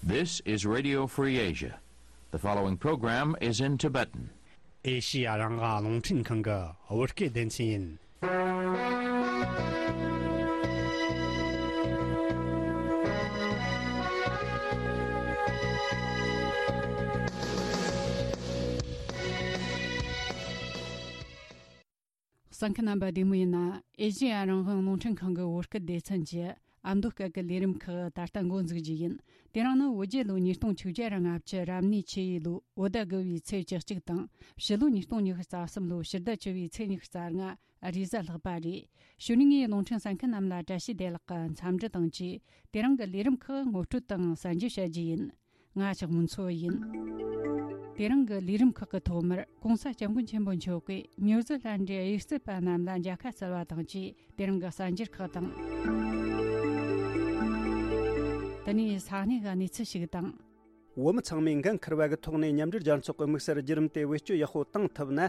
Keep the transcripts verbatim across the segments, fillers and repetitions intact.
This is Radio Free Asia. The following program is in Tibetan. ཨེ་ཤི་ཡ་རང་དབང་རླུང་འཕྲིན་ཁང་གི་བོད་སྐད་སྡེ་ཚན་ཡིན། གསན་མཁན་རྣམ་པ་བདེ་མོ་ཡིན་ན། ཨེ་ཤི་ཡ་རང་དབང་རླུང་འཕྲིན་ཁང་གི་བོད་སྐད་སྡེ་ཚན་གྱི་ཨ་མདོ་སྐད་ཀྱི་ལས་རིམ་ཁག་ད་ལྟ་འགོ་འཛུགས་རྒྱུ་ཡིན། དེ་རིང་ནི་བོད་རྒྱལ་ལོ་ཉིས་སྟོང་ཆིག་བརྒྱ་ར་ལྔ་བཅུ་རབ་གནས་ཆུ་ཡོས་ལོའི་བོད་ཟླ་དགུ་བའི་ཚེས་བཅུ་གཅིག་དང་། ཕྱི་ལོ་ཉིས་སྟོང་ཉི་ཤུ་རྩ་གསུམ་ལོའི་ཕྱི་ཟླ་བཅུ་བའི་ཚེས་ཉི་ཤུ་རྩ་ལྔ་རེས་གཟའ་ལྷག་པ་རེད། གཞུག་ནས་ངས་རླུང་འཕྲིན་གསན་མཁན་རྣམས་ལ་བཀྲ་ཤིས་བདེ་ལེགས་ཀྱི་འཚམས་འདྲི་དང་བཅས། དེ་རིང་གི་ལས་རིམ་ཁག་ངོ་སྤྲོད་དང་གསན་རྒྱུ་བྱ་རྒྱུ་ཡིན། ང་ལྕགས་མོ་མཚོ་ཡིན། དེ་རིང་གི་ལས་རིམ་ཁག་གི་ཐོག་མར་༸གོང་ས་༸སྐྱབས་མགོན་ཆེན་པོ་མཆོག་གིས་ཉུ་ཛི་ལན་ཌའི་དབྱུག་རྩེད་པ་རྣམས་ལ་མཇལ་ཁ་བསྩལ་བ་དང་བཅས། དེ་རིང་གི་གསར་འགྱུར་ཁག་དང་། དེ་ནས་ས་གནས་ཀྱི་གནས་ཚུལ་ཞིག་དང་། བོད་མི་ཚང་མས་འགན་འཁུར་བ་གི་ཐོག་ནས་མཉམ་འབྲེལ་རྒྱལ་ཚོགས་ཀྱི་དམིགས་བསལ་བརྒྱུད་རིམ་དེ་བེད་སྤྱོད་ཡག་པོ་བཏང་ཐུབ་ན།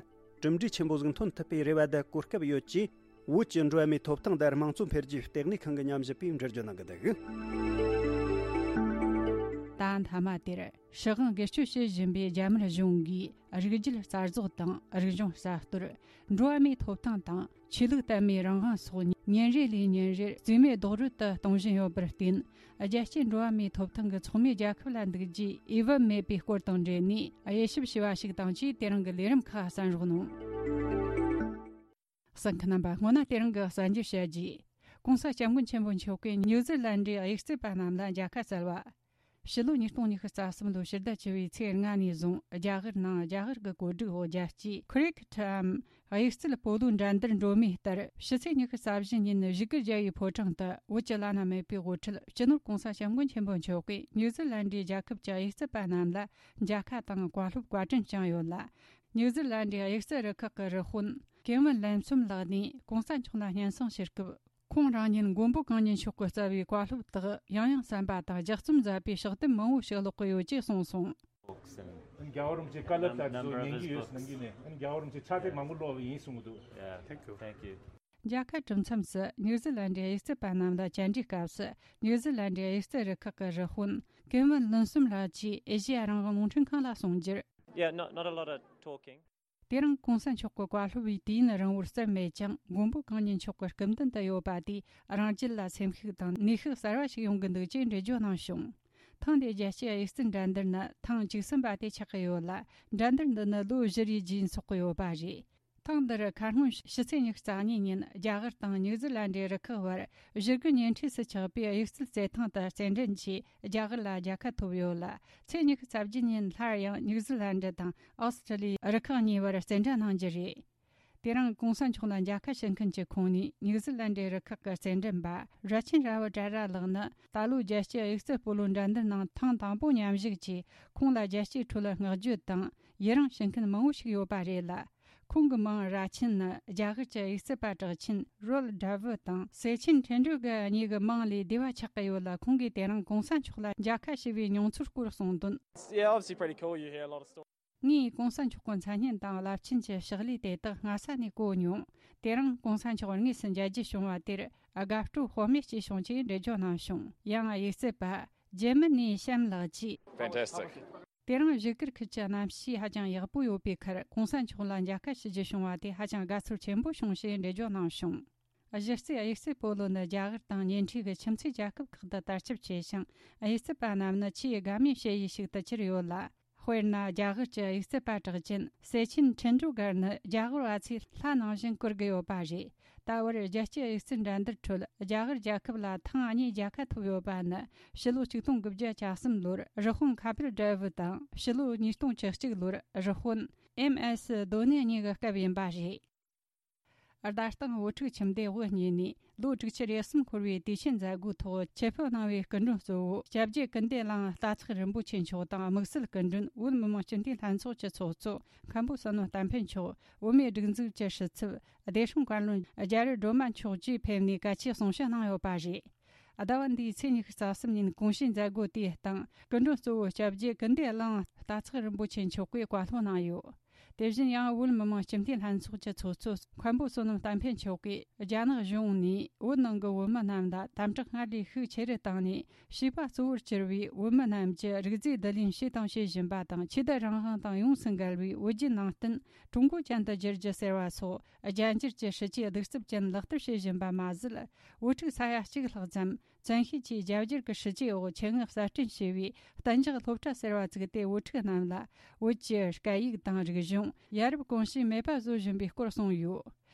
གྲུབ་འབྲས་ཆེན་པོ་ཟིག་འཐོན་ཐུབ་པའི་རེ་བ་དང་གོ་སྐབས་ཡོད་ཅེས། བོད་ཀྱི་འགྲོ་བ་མིའི་ཐོབ་ཐང་དང་དམངས་གཙོ་འཕེལ་རྒྱས་ལྟེ་གནས་ཁང་གི་ཉམས་ཞིབ་པས་འགྲེལ་བརྗོད་གནང་གི་འདུག། ད་མཐའ་མ་དེར་ཧྲི་ཧང་སྒེར་གཅོད་བྱེད་བཞིན་པའི་རྒྱ་དམར་གཞུང་གིས་རིགས་རྒྱུད་རྩ་རྫོགས་དང་རིག་གཞུང་གསར་གཏོད། འགྲོ་བ་མིའི་ཐོབ་ཐང་དང་ཆོས་ལུགས་དད་མོས་རང་དབང་སོགས་ཉིན་རེ་ལས་ཉིན་རེར་རྩིས་མེད་རྡོག་རོལ་དུ་གཏོང་བཞིན་ཡོད་པར་བརྟེན། རྒྱལ་སྤྱིའི་འགྲོ་བ་མིའི་ཐོབ་ཐང་གི་ཚོགས་མི་རྒྱལ་ཁབ་ལ་འདུག་རྒྱུའི་འོས་བབ་མེད་པའི་སྐོར་དང་འབྲེལ་ནས་དབྱེ་ཞིབ་བྱས་པ་ཞིག་དང་བཅས། དེ་རིང་གི་ལས་རིམ་ཁག་གསན་རོགས་གནང་། གསན་མཁན་རྣམ་པ། སྔོན་ན་དེ་རིང་གི་གསར་འགྱུར་བཤད་རྒྱུ། ༸གོང་ས་༸སྐྱབས་མགོན་ཆེན་པོ་མཆོག་གིས་ཉུ་ཛི་ལན་ཌའི་དབྱུག་རྩེད་པ་རྣམས་ལ་མཇལ་ཁ་བསྩལ་བ། ཕྱི་ལོ་ཉིས་སྟོང་ཉི་ཤུ་རྩ་གསུམ་ལོའི་ཕྱི་ཟླ་བཅུ་བའི་ཚེས་ལྔ་ནས་བཟུང་རྒྱ་གར་ནང་རྒྱ་གར་གྱི་གོ་སྒྲིག་འོག་རྒྱལ་སྤྱིའི་ཁི་རི་ཀེ་ཊམ་དབྱུག་རྩེད་སྤོ་ལོའི་འགྲན་བསྡུར་འགྲོ་མུས་ལྟར། ཕྱི་ཚེས་ཉི་ཤུ་རྩ་བཞི་ཉིན་བཞུགས་སྒར་རྒྱལ་བའི་ཕོ་བྲང་དུ་བོད་ཀྱི་བླ་ན་མེད་པའི་དབུ་ཁྲིད་སྤྱི་ནོར་༸གོང་ས་༸སྐྱབས་མགོན་ཆེན་པོ་མཆོག་གིས་ཉུ་ཛི་ལན་ཌའི་རྒྱལ་ཁབ་ཀྱི་དབྱུག་རྩེད་པ་རྣམས་ལ་མཇལ་ཁ་དང་བཀའ་སློབ་བཀའ་དྲིན་བསྐྱངས་ཡོད་ལ། ཉུ་ཛི་ལན་ཌའི་དབྱུག་རྩེད་རུ་ཁག་གི་རུ་དཔོན་ཀེ་ཝིན་ལན་སུམ་ལགས་ནས་༸གོང་ས་མཆོག་ལ་སྙན་སེང་ཞུ་སྐབས། ཁོང་རང་ཉིད་མགོན་པོ་གང་ཉིད་མཆོག་གིས་བསྩལ་བའི་བཀའ་སློབ་དག་ཡང་ཡང་གསན་པ་དང་ལྗགས་རྩོམ་མཛད་པའི་ཕྱག་དེབ་མང་བོ་ཞིག་ཀློག་གི་ཡོད་ཅེས་གསུངས་སོང་། རྒྱལ་བ་རིན་པོ་ཆེ་བཀའ་སློབ་ལྟར་དུ་ཉན་གྱི་ཡོད་ཟེར་གནང་གི་ནས། རྒྱལ་བ་རིན་པོ་ཆེ་ཕྱག་དེབ་མང་པོ་ཀློག་པ་ཡིན་གསུང་གི་འདུག། Yeah, thank you. Thank you. མཇལ་ཁ་གྲུབ་མཚམས་སུ་ཉུ་ཛི་ལན་ཌའི་དབྱུག་རྩེད་པ་རྣམས་ལ་བཅར་འདྲིའི་སྐབས་སུ། ཉུ་ཛི་ལན་ཌའི་དབྱུག་རྩེད་རུ་ཁག་གི་རུ་དཔོན་ཀེ་ཝིན་ལན་སུམ་ལགས་ཀྱིས་ཨེ་ཤེ་ཡ་རང་དབང་རླུང་འཕྲིན་ཁང་ལ་གསུངས་རྒྱུར། Yeah, not, not a lot of talking. དེ་རིང་༸གོང་ས་མཆོག་གི་བཀའ་སློབ་པའི་དུས་ཡུན་རིང་བོར་སེམས་མེད་ཀྱང་། མགོན་པོ་གང་ཉིད་མཆོག་གི་སྐུ་མདུན་དུ་ཡོད་པ་དེས་རང་རྒྱུད་ལ་སེམས་ཤུགས་དང་ནུས་ཤུགས་གསར་བ་ཞིག་ཡོང་གི་འདུག་ཅེས་འགྲེལ་བརྗོད་གནང་བྱུང་། ཐེངས་འདིའི་རྒྱལ་སྤྱིའི་དབྱུག་རྩལ་འགྲན་བསྡུར་ནི་ཐེངས་བཅུ་གསུམ་པ་དེ་ཆགས་ཀྱི་ཡོད་ལ། འགྲན་བསྡུར་འདི་ནི་ལོ་བཞི་རེའི་རྗེས་འཚོགས་ཀྱི་ཡོད་པ་རེད། ཐེངས་འདིར་ཁ་སྔོན་ཕྱི་ཚེས་ཉི་ཤུ་རྩ་གཉིས་ཉིན་རྒྱ་གར་དང་ཉུ་ཛི་ལན་ཌའི་རུ་ཁག་བར་བཞུགས་སྒར་ཉེ་འཁྲིས་སུ་ཆགས་པའི་དབྱུག་རྩལ་རྩེད་ཐང་དུ་རྩེད་འགྲན་གྱིས་རྒྱ་གར་ལ་རྒྱལ་ཁ་ཐོབ་ཡོད་ལ། ཚེས་ཉི་ཤུ་རྩ་བརྒྱད་ཉིན་སླར་ཡང་ཉུ་ཛི་ལན་ཌ་དང་ཨོ་སི་ཀྲི་ལི་ཡའི་རུ་ཁག་གཉིས་བར་རྩེད་འགྲན་གནང་རྒྱུ་རེད། དེ་རིང་༸གོང་ས་མཆོག་ལ་མཇལ་ཁ་ཞུ་མཁན་གྱི་ཁོངས་ནས་ཉུ་ཛི་ལན་ཌའི་རུ་ཁག་གི་རྩེད་འགྲན་པ་ར་ཆིན་ར་བི་ཏྲ་ར་ལགས་ནི་ད་ལོའི་རྒྱལ་སྤྱིའི་དབྱུག་རྩལ་སྤོ་ལོའི་འགྲན་བསྡུར་ནང་ཐེངས་དང་པོ་མཉམ་ཞུགས་ཀྱིས། ཁོང་ལ་རྒྱལ་སྤྱིའི་ཁྲོད་བསྔགས་བརྗོད་དང་ཡི་རངས་ཞུ་མཁན་མང་བོ་ཞིག་ཡོད་པ་རེད་ལ། ཁོང་གི་མིང་ར་ཆིན་ནི་རྒྱ་གར་གྱི་དབྱུག་རྩལ་པ་གྲགས་ཆེན་རོལ་ཌ་ཝུ་དང་སེ་ཆིན་ཁྲེན་ཀྲུའུ་གར་གཉིས་ཀྱི་མིང་ལས་བསྡུས་པ་ཆགས་ཀྱི་ཡོད་ལ། ཁོང་གིས་དེ་རིང་༸གོང་ས་མཆོག་ལ་མཇལ་ཁ་ཞུ་བའི་མྱོང་ཚོར་སྐོར་གསུངས་དོན། Yeah, obviously pretty cool. You hear a lot of stories. ངས་༸གོང་ས་མཆོག་གི་མཚན་སྙན་དང་རླབས་ཆེན་གྱི་ཕྱག་ལས་དེ་དག་སྔ་ས་ནས་གོ་མྱོང་། དེ་རིང་༸གོང་ས་མཆོག་དངོས་སུ་མཇལ་རྒྱུ་བྱུང་བ་དེར་དགའ་སྤྲོ་ལྷོད་མེད་སྐྱེས་བྱུང་ཅེས་འགྲེལ་བརྗོད་གནང་བྱུང་། ཡང་དབྱུག་རྩལ་པ་ཇེ་མི་ནི་ཤམ་ལགས་ཀྱིས། Fantastic. དེ་རིང་བཞུགས་སྒར་ཁུལ་གྱི་གནམ་གཤིས་ཧ་ཅང་ཡག་པོ་ཡོད་པའི་ཁར། ༸གོང་ས་མཆོག་ལ་མཇལ་ཁ་ཞུ་རྒྱུ་བྱུང་བ་དེ་ཧ་ཅང་དགའ་ཚོར་ཆེན་པོ་བྱུང་ཞེས་འགྲེལ་བརྗོད་གནང་བྱུང་། གཞི་རྩའི་དབྱུག་རྩལ་སྤོ་ལོ་ནི་རྒྱ་གར་དང་ཉེ་འཁྲིས་ཀྱི་ཁྱིམ་མཚེས་རྒྱལ་ཁབ་ཁག་ཏུ་དར་ཁྱབ་ཆེ་ཞིང་། དབྱུག་རྩལ་པ་རྣམས་ནི་ཆེས་དགའ་མོས་བྱེད་ཡུལ་ཞིག་ཏུ་གྱུར་ཡོད་ལ། དཔེར་ན། རྒྱ་གར་གྱི་དབྱུག་རྩལ་པ་གྲགས་ཅན་སེ་ཆིན་ཁྲིན་ཀྲུའུ་གར་ནི་རྒྱ་གར་བ་ཚོས་ལྷ་ནང་བཞིན་བཀུར་གྱི་ཡོད་པ་རེད། ད་བར་རྒྱལ་སྤྱིའི་དབྱུག་རྩལ་འགྲན་བསྡུར་ཁྲོད་རྒྱ་གར་རྒྱལ་ཁབ་ལ་ཐེངས་གཉིས་རྒྱལ་ཁ་ཐོབ་ཡོད་པ་ནི། ཕྱི་ལོ་ཆིག་སྟོང་དགུ་བརྒྱ་གྱ་གསུམ་ལོར་རུ་དཔོན་ཁ་པིལ་དྲ་བུ་དང་། ཕྱི་ལོ་ཉིས་སྟོང་བཅུ་གཅིག་ལོར་རུ་དཔོན་ཨེམ་ཨེས་དོ་ནེ་གཉིས་ཀྱི་སྐབས་ཡིན་པ་རེད། རྡ་སྟེང་བོད་ཕྲུག་ཁྱིམ་སྡེ་དབུ་བརྙེས་ནས་ལོ་དྲུག་ཅུ་རེ་གསུམ་འཁོར་བའི་དུས་ཆེན་མཛད་སྒོའི་ཐོག་ཆེད་ཕེབས་གནང་བའི་སྐུ་མགྲོན་གཙོ་བོ་སྐྱབས་རྗེ་ཀུན་བདེ་གླིང་རྟ་ཚེགས་རིན་པོ་ཆེ་མཆོག་དང་། དམིགས་བསལ་སྐུ་མགྲོན་བོད་མི་མང་སྤྱི་འཐུས་ལྷན་ཚོགས་ཀྱི་ཚོགས་གཙོ་མཁན་པོ་བསོད་ནམས་བསྟན་འཕེལ་མཆོག་བོད་མིའི་སྒྲིག་འཛུགས་ཀྱི་ཕྱི་ཚབ་བདེ་སྲུང་བཀའ་བློན་རྒྱ་རི་སྒྲོལ་མ་མཆོག་བཅས་ཕེབས་ནས་གལ་ཆེའི་གསུང་བཤད་གནང་ཡོད་པ་རེད། ཟླ་བ་འདིའི་ཚེས་ཉི་ཤུ་རྩ་གསུམ་ཉིན་གོང་ཞུས་མཛད་སྒོ་དེའི་སྟེང་སྐུ་མགྲོན་གཙོ་བོ་སྐྱབས་རྗེ་ཀུན་བདེ་གླིང་རྟ་ཚེགས་རིན་པོ་ཆེ་མཆོག་གིས་བཀའ་སློབ་གནང་ཡོད། དེ་བཞིན་ཡང་བོད་མི་མང་སྤྱི་འཐུས་ལྷན་ཚོགས་ཀྱི་ཚོགས་གཙོ་མཁན་པོ་བསོད་ནམས་བསྟན་འཕེལ་མཆོག་གིས། རྒྱ་ནག་གཞུང་ནས་བོད་ནང་གི་བོད་མི་རྣམས་ལ་དམ་དྲག་སྔར་ལས་ཤུགས་ཆེ་རུ་བཏང་ནས། བྱིས་པ་གཙོ་བོར་གྱུར་བའི་བོད་མི་རྣམས་ཀྱི་རིག་རྫས་བསྡུ་ལེན་བྱས་དང་བྱེད་བཞིན་པ་དང་། ཆོས་དད་རང་དབང་དང་ཡོངས་སུ་འགལ་བའི་བོད་བརྒྱུད་ནང་བསྟན་ཀྲུང་གོ་ཅན་དུ་བསྒྱུར་རྒྱུ་ཟེར་བ་སོགས། རྒྱ་འགྱུར་གྱི་སྲིད་ཇུས་གདུག་རྩུབ་ཅན་ལག་བསྟར་བྱེད་བཞིན་པ་མ་ཟད། བོད་ཕྲུག་ས་ཡ་གཅིག་ལྷག་ཙམ་བཙན་ཤེད་ཀྱིས་རྒྱ་སྒྱུར་གྱི་སྲིད་ཇུས་འོག་ཆེད་མངགས་གསར་སྐྲུན་བྱས་པའི་གཏན་འཇགས་སློབ་གྲྭ་ཟེར་བ་བཙུགས་ཏེ། བོད་ཕྲུག་རྣམས་ལ་བོད་ཀྱི་སྐད་ཡིག་དང་རིག་གཞུང་། ཡ་རབས་གོམས་གཤིས་མེད་པ་བཟོ་བཞིན་པའི་སྐོར་གསུངས་ཡོད།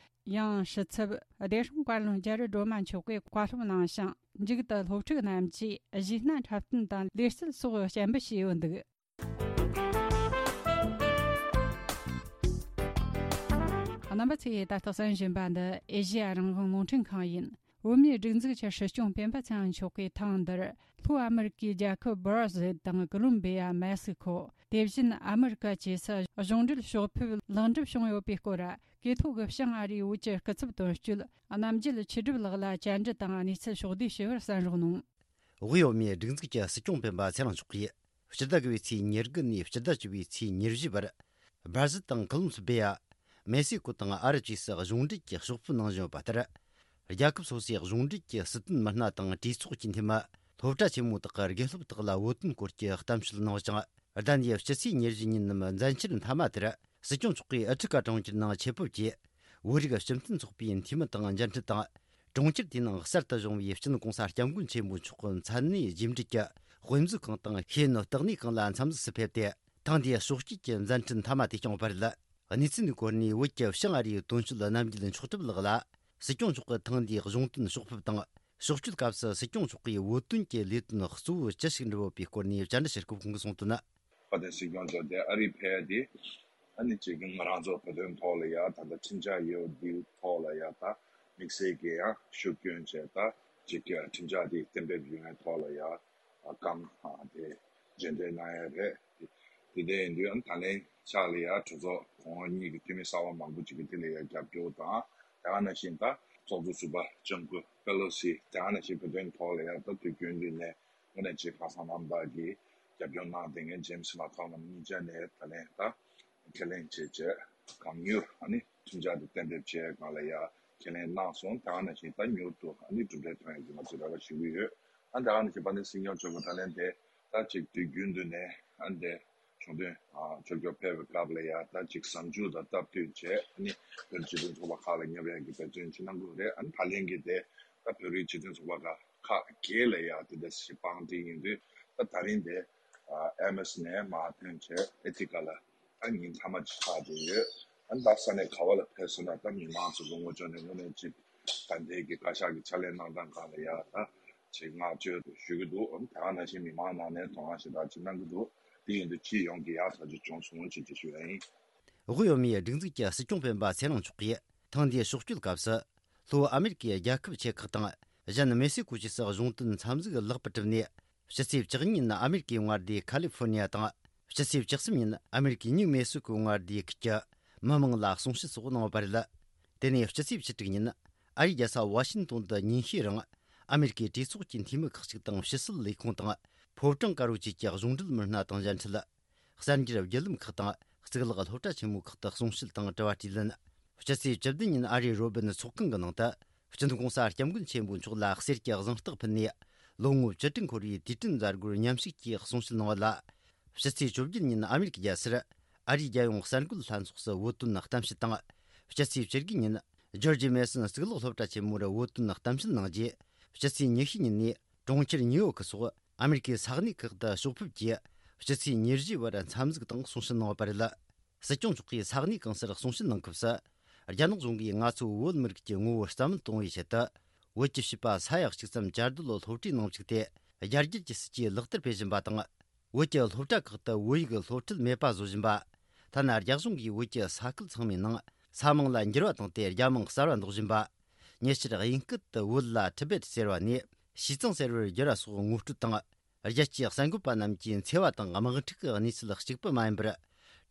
ཡང་། ཕྱི་ཚབ་བདེ་སྲུང་བཀའ་བློན་རྒྱ་རི་སྒྲོལ་མ་མཆོག་གིས་བཀའ་སློབ་གནང་ཞིང་། མཇུག་ཏུ་སློབ་ཕྲུག་རྣམས་ཀྱིས་གཞས་སྣ་འཁྲབ་སྟོན་དང་ལེ་རྩལ་སོགས་སྤྱན་འབུལ་བྱས་ཡོད་འདུག། རྣམ་པ་ཚོས་ད་ལྟ་གསན་བཞིན་པ་འདི་ཨེ་ཤེ་ཡ་རང་དབང་རླུང་འཕྲིན་ཁང་ཡིན། བོད་མིའི་སྒྲིག་འཛུགས་ཀྱི་སྲིད་སྐྱོང་སྤེན་པ་ཚེ་རིང་མཆོག་གིས་ཐེངས་འདིར་ལྷོ་ཨ་མི་རི་ཀའི་རྒྱལ་ཁབ་སྦར་ཟིལ་དང་ཀོ་ལོམ་བི་ཡ། མེག་སི་ཁོ། དེ་བཞིན་ཨ་མི་རི་ཀ་བཅས་སུ་གཞུང་འབྲེལ་ཕྱོགས་ཕེབས་ལེགས་འགྲུབ་བྱུང་ཡོད་པའི་སྐོར། ཀེ་ཐོག་གི་བྱང་ཨ་རིའི་བོད་ཀྱི་སྐུ་ཚབ་དོན་གཅོད་རྣམ་རྒྱལ་ཆོས་སྒྲུབ་ལགས་ལ་བཅར་འདྲི་དང་གནས་ཚུལ་ཕྱོགས་བསྡུས་ཞུ་བར་གསན་རོགས་གནང་། དབུས་བོད་མིའི་སྒྲིག་འཛུགས་ཀྱི་སྲིད་སྐྱོང་སྤེན་པ་ཚེ་རིང་མཆོག་གིས། སྤྱི་ཟླ་དགུ་པའི་ཚེས་ཉེར་དགུ་ནས་སྤྱི་ཟླ་བཅུ་པའི་ཚེས་ཉེར་བཞི་བར། སྦར་ཟིལ་དང་ཀོ་ལོམ་སྦི་ཡ། མེག་སི་ཀོ་དང་ཨ་རབ་བཅས་སུ་གཞུང་འབྲེལ་གྱི་ཕྱོགས་ཕེབས་གནང་བཞིན་ཡོད་པ་ལྟར། རྒྱལ་ཁབ་སོ་སོའི་གཞུང་འབྲེལ་གྱི་སྲིད་དོན་མི་སྣ་དང་གྲོས་ཚོགས་ཀྱི་འཐུས་མི། སློབ་གྲྭ་ཆེན་མོ་དག་གི་དགེ་སློབ་དག་ལ་བོད་དོན་སྐོར་གྱི་གཏམ་བཤད་གནང་ཞིང་། ཟླ་འདིའི་སྤྱི་ཚེས་ཉེར་བཞི་ཉིན་ནམ་མཛད་འཆར་མཐའ་མ་དེར། སྲིད་སྐྱོང་མཆོག་གིས་ཨ་ཕྲི་ཀ་གྲོང་ཁྱེར་ནང་ཆེད་ཕེབས་ཀྱིས། བོད་རིགས་སྤྱི་མཐུན་ཚོགས་པའི་འཐུས་མི་དང་མཇལ་འཕྲད་དང་། གྲོང་ཁྱེར་དེའི་ནང་གསར་དུ་བྱུང་བའི་སྤྱི་ནོར་གོང་ས་སྐྱབས་མགོན་ཆེན་པོ་མཆོག་མཚན་གནས་རྗེས་འབྲེལ་གྱི་དཔེ་མཛོད་ཁང་དང་ཤེས་ཡོན་བརྟག་གནས་ཁང་ལ་འཚམས་གཟིགས་སུ་ཕེབས་ཏེ། ཐེངས་འདིའི་ཕྱོགས་བསྐྱོད་ཀྱི་མཛད་འཕྲིན་མཐའ་མ་དེ་བསྐྱངས་པ་རེད། གནས་ཚུལ་འདིའི་སྐོར་ནས་བོད་ཀྱི་བྱང་ཨ་རིའི་དོན་གཅོད་རྣམ་རྒྱལ་མཆོག་གྲུབ་ལགས་ལ། སྲིད་སྐྱོང་མཆོག་གིས་ཐེངས་འདིའི་གཞུང་དོན་ཕྱོགས་ཕེབས་དང་། ཕྱོགས་བསྐྱོད་སྐབས་སུ་སྲིད་སྐྱོང་མཆོག་གིས་བོད་དོན་གྱི་ལས་དོན་གཙོ་བོ་ཅི་ཞིག་འགྲུབ་ཡོད་པའི་སྐོར་ནས་བཅར་འདྲི་བྱེད་སྐབས་ཁོང་གིས་གསུངས་དོན། དཔལ་ལྡན་སྲིད་སྐྱོང་མཆོག་དེ་ཨ་རིར་ཕེབས་ཏེ། ཨ་ནི་གཅིག་ང་རང་ཚོ་བོད་དོན་ཐོག་ལ་ཡ་ད་ལྟ་ཁྲིམས་འཆར་ཡོད་འདིའི་ཐོག་ལ་ཡ་ད་དམིགས་བསལ་གྱི་ཡང་ཤུགས་སྐྱོན་བྱས། ད་གཅིག་ཁྲིམས་འཆར་དེ་གཏན་འབེབས་ཡོང་བའི་ཐོག་ལ་ཡ་བཀའ་མོལ་དེ་རྗེས་འདེད་གནང་ཡ་རེད། དེ་དེ་འདྲ་ཡིན་དུས་ཨ་ནི་ད་ལན་ཆགས་ལ་ཡ་གྲོས་ཚོགས་གོང་འོག་གཉིས་ཀྱི་འཐུས་མི་གསར་པ་མང་པོ་ཅིག་གིས་དེ་ལ་ཡ་རྒྱབ་སྐྱོར་དང་། དེ་ག་ནང་བཞིན་ད་ཚོགས་གཙོ་ཟུར་པ་ལྕམ་སྐུ་པེ་ལོ་སི། དེ་ག་ནང་བཞིན་བོད་དོན་ཐོག་ལ་ཡ་ད་དུས་རྒྱུན་དུ་ནས་དངོས་གནས་ཆེས་ཁ་སང་རྣམ་དག་གིས་རྒྱབ་སྐྱོར་གནང་བསྡད་མཁན་ཇེམ་སི་མེག་ཁོ་ལམ་གཉིས་ཆ་ནས་ད་ལན་ད་ཁས་ལེན་བྱས་བྱས་གང་མྱུར་ཨ་ནི་ཁྲིམས་འཆར་དེ་གཏན་འབེབས་བྱས་སྒང་ལ་ཡ་ཁས་ལེན་གནང་སོང་། དེ་ག་ནང་བཞིན་ད་མྱུར་དུ་ཨ་ནི་གྲུབ་འབྲས་ཐོན་ཡག་གི་ང་ཚོས་རེ་བ་ཞུ་གི་ཡོད། ཨ་དེ་ག་ནང་བཞིན་དཔལ་ལྡན་སྲིད་སྐྱོང་མཆོག་གིས་ད་ལན་དེ་ད་ཅིག་དུས་རྒྱུན་དུ་ནས་ཨ་འདི་གཞུང་དོན་ཕྱོགས་སྐྱོད་ཕེབས་པའི་སྐབས་ལ་ཡ་ད་ཅིག་གཟའ་མཇུག་དང་སྟབས་བསྟུན་བྱས་ཨ་ནི་བོད་སྤྱི་མཐུན་ཚོགས་པ་ཁག་ལ་ཉེ་བའི་གི་འབད་བརྩོན་ཅིག་གནང་དགོས་རེད། ཨ་ནི་ད་ལན་གྱི་དེ་ད་བོད་རིགས་སྤྱི་མཐུན་ཚོགས་པ་ཁག་ཁག་བརྒྱད་ལ་ཡ་དེ་འདྲ་ཞིག་དཔང་སྒྲིག་ཡིན་དུས། ད་ད་རིང་དེ་ཨ་ཨེམ་ཨེས་ནས་མར་ཐོན་བྱས་ཨེ་ཐི་ཀ་ལ་ད་ཉིན་མཐའ་མ་ཅིག་ཆགས་བསྡད་ཡོད། ཨ་ནི་ད་ས་གནས་ག་བ་ལ་ཕེབས་སོང་ན་ད་མི་མང་ཚོ་གི་ངོ་ཕྱོགས་ནས་དངོས་གནས་ཅིག་ད་ལྟའི་གི་བཀའ་ཤག་གི་ཕྱག་ལས་གནང་སྟངས་སྒང་ལ་ཡ་ད་ཅིག་བསྔགས་བརྗོད་ཞུ་གི་འདུག་ཨ་ནི་ད་ག་ནང་བཞིན་མི་མང་ནང་ནས་དོ་སྣང་ཞེ་དྲག་ཅིག་གནང་གི་འདུག་དེ་ཡིན་དུས་སྤྱི་ཡོངས་ཀྱི་ཡག་ཐག་ཆོད་བྱུང་སོང་ཅེས་ཅིག་ཞུ་ཡ་ཡིན། དབུས་བོད་མིའི་སྒྲིག་འཛུགས་ཀྱི་སྲིད་སྐྱོང་སྤེན་པ་ཚེ་རིང་མཆོག་གིས་ཐེངས་འདིའི་ཕྱོགས་བསྐྱོད་སྐབས་སུ། ལྷོ་ཨ་མེ་རི་ཀའི་རྒྱལ་ཁབ་ཆེ་ཁག་དང་། གཞན་མེག་སི་ཀོ་བཅས་སུ་གཞུང་དོན་འཚམས་གཟིགས་ལེགས་པར་གྲུབ་ནས། ཕྱི་ཚེས་བཅུ་གཉིས་ཉིན་ཨ་མེ་རི་ཀའི་མངའ་སྡེ་ཁ་ལི་ཧྥོ་ནི་ཡ་དང་། ཕྱི་ཚེས་བཅུ་གསུམ་ཉིན་ཨ་མེ་རི་ཀའི་ཉིའུ་མེག་སི་ཀོའི་མངའ་སྡེ་ཁུལ་གྱི་མི་མང་ལ་གསུང་བཤད་སོགས་གནང་བ་རེད། དེ་ནས་ཕྱི་ཚེས་བཅུ་དྲུག་ཉིན་ཨ་རིའི་རྒྱལ་ས་ཝ་ཤིང་ཏོན་དུ་ཉིན་ཤས་རིང་ཨ་མེ་རི་ཀའི་གྲོས་ཚོགས་ཀྱི་འཐུས་མི་ཁག་ཅིག་དང་ཕྱི་སྲིད་ལས་ཁུངས་དང་ཕོ་བྲང་དཀར་པོ་བཅས་ཀྱི་གཞུང་འབྲེལ་མི་སྣ་དང་མཇལ་འཕྲད། གསར་འགྱུར་བརྒྱུད་ལམ་ཁག་དང་གཙུག་ལག་སློབ་གྲྭ་ཆེན་མོའི་ཁག་ཏུ་གསུང་བཤད་དང་དྲི་བ་དྲིས་ལན། སྤྱི་ཚེས་བཅུ་བདུན་ཉིན་ཨ་རིའི་རོ་སྦིན་ཚོགས་ཁང་གི་ནང་དུ་སྤྱི་ནོར་༸གོང་ས་༸སྐྱབས་མགོན་ཆེན་པོ་མཆོག་ལ་གསེར་གྱི་གཟེངས་རྟགས་ཕུལ་ནས། ལོ་ངོ་བཅུ་དྲུག་འཁོར་བའི་དུས་དྲན་མཛད་སྒོར་མཉམ་ཞུགས་ཀྱིས་གསུང་བཤད་གནང་བ་ལ། སྤྱི་ཚེས་བཅོ་བརྒྱད་ཉིན་ཨ་མེ་རི་ཀའི་རྒྱལ་སར་ཨ་རིའི་རྒྱལ་ཡོངས་གསར་འགོད་ལྷན་ཚོགས་སུ་བོད་དོན་གཏམ་བཤད་དང་། སྤྱི་ཚེས་བཅུ་དགུ་ཉིན་ཇོར་ཇི་མེ་སོན་གཙུག་ལག་སློབ་གྲྭ་ཆེན་མོར་བོད་དོན་གཏམ་བཤད་གནང་རྗེས། སྤྱི་ཚེས་ཉི་ཤུ་ཉིན་ནས་གྲོང་ཁྱེར་ཉིའུ་ཡོག་སོགས་ཨ་མེ་རི་ཀའི་ས་གནས་ཁག་ཏུ་ཕྱོགས་ཕེབས་ཀྱིས་སྤྱི་ཚེས་ཉེར་བཞི་བར་འཚམས་གཟིགས་དང་གསུང་བཤད་གནང་བ་རེད། སྲིད་སྐྱོང་མཆོག་གིས་ས་གནས་གང་སར་གསུང་བཤད་གནང་སྐབས་སུ། རྒྱ་ནག་གཞུང་གིས་ང་ཚོའི་བོད་མི་རིགས་ཀྱི་ངོ་བོ་རྩ་མེད་གཏོང་བའི་ཆེད་དུ། བོད་ཀྱི་བྱིས་པ་ས་ཡ་གཅིག་ཙམ་བཅའ་སྡོད་སློབ་གྲྭའི་ནང་བཅུག་སྟེ། རྒྱ་སྒྱུར་གྱི་སྲིད་ཇུས་ལག་བསྟར་སྤེལ་བཞིན་པ་དང་། བོད་ཀྱི་སློབ་གྲྭ་ཁག་ཏུ་བོད་ཡིག་སློབ་ཁྲིད་མེད་པ་བཟོ་བཞིན་པ། ཐ་ན་རྒྱ་གཞུང་གིས་བོད་ཀྱི་ས་ཁུལ་ཚང་མའི་ནང་ས་མིང་ལ་འགྱུར་བ་བཏང་སྟེ་རྒྱ་མིང་གསར་བ་འདོགས་བཞིན་པ། ཉེ་ཆར་དབྱིན་སྐད་དུ་བོད་ལ་ཊི་བེད་ཟེར་བ་ནས་ཞི་ཙང་ཟེར་བར་བསྒྱུར་བ་སོགས་ངོ་སྤྲོད་དང་། རྒྱལ་སྤྱིའི་གསར་འགོད་པ་རྣམས་ཀྱི་འཚེ་བ་དང་དམག་འཁྲུག་གི་གནས་ཚུལ་གཅིག་པུ་མ་ཡིན་པར།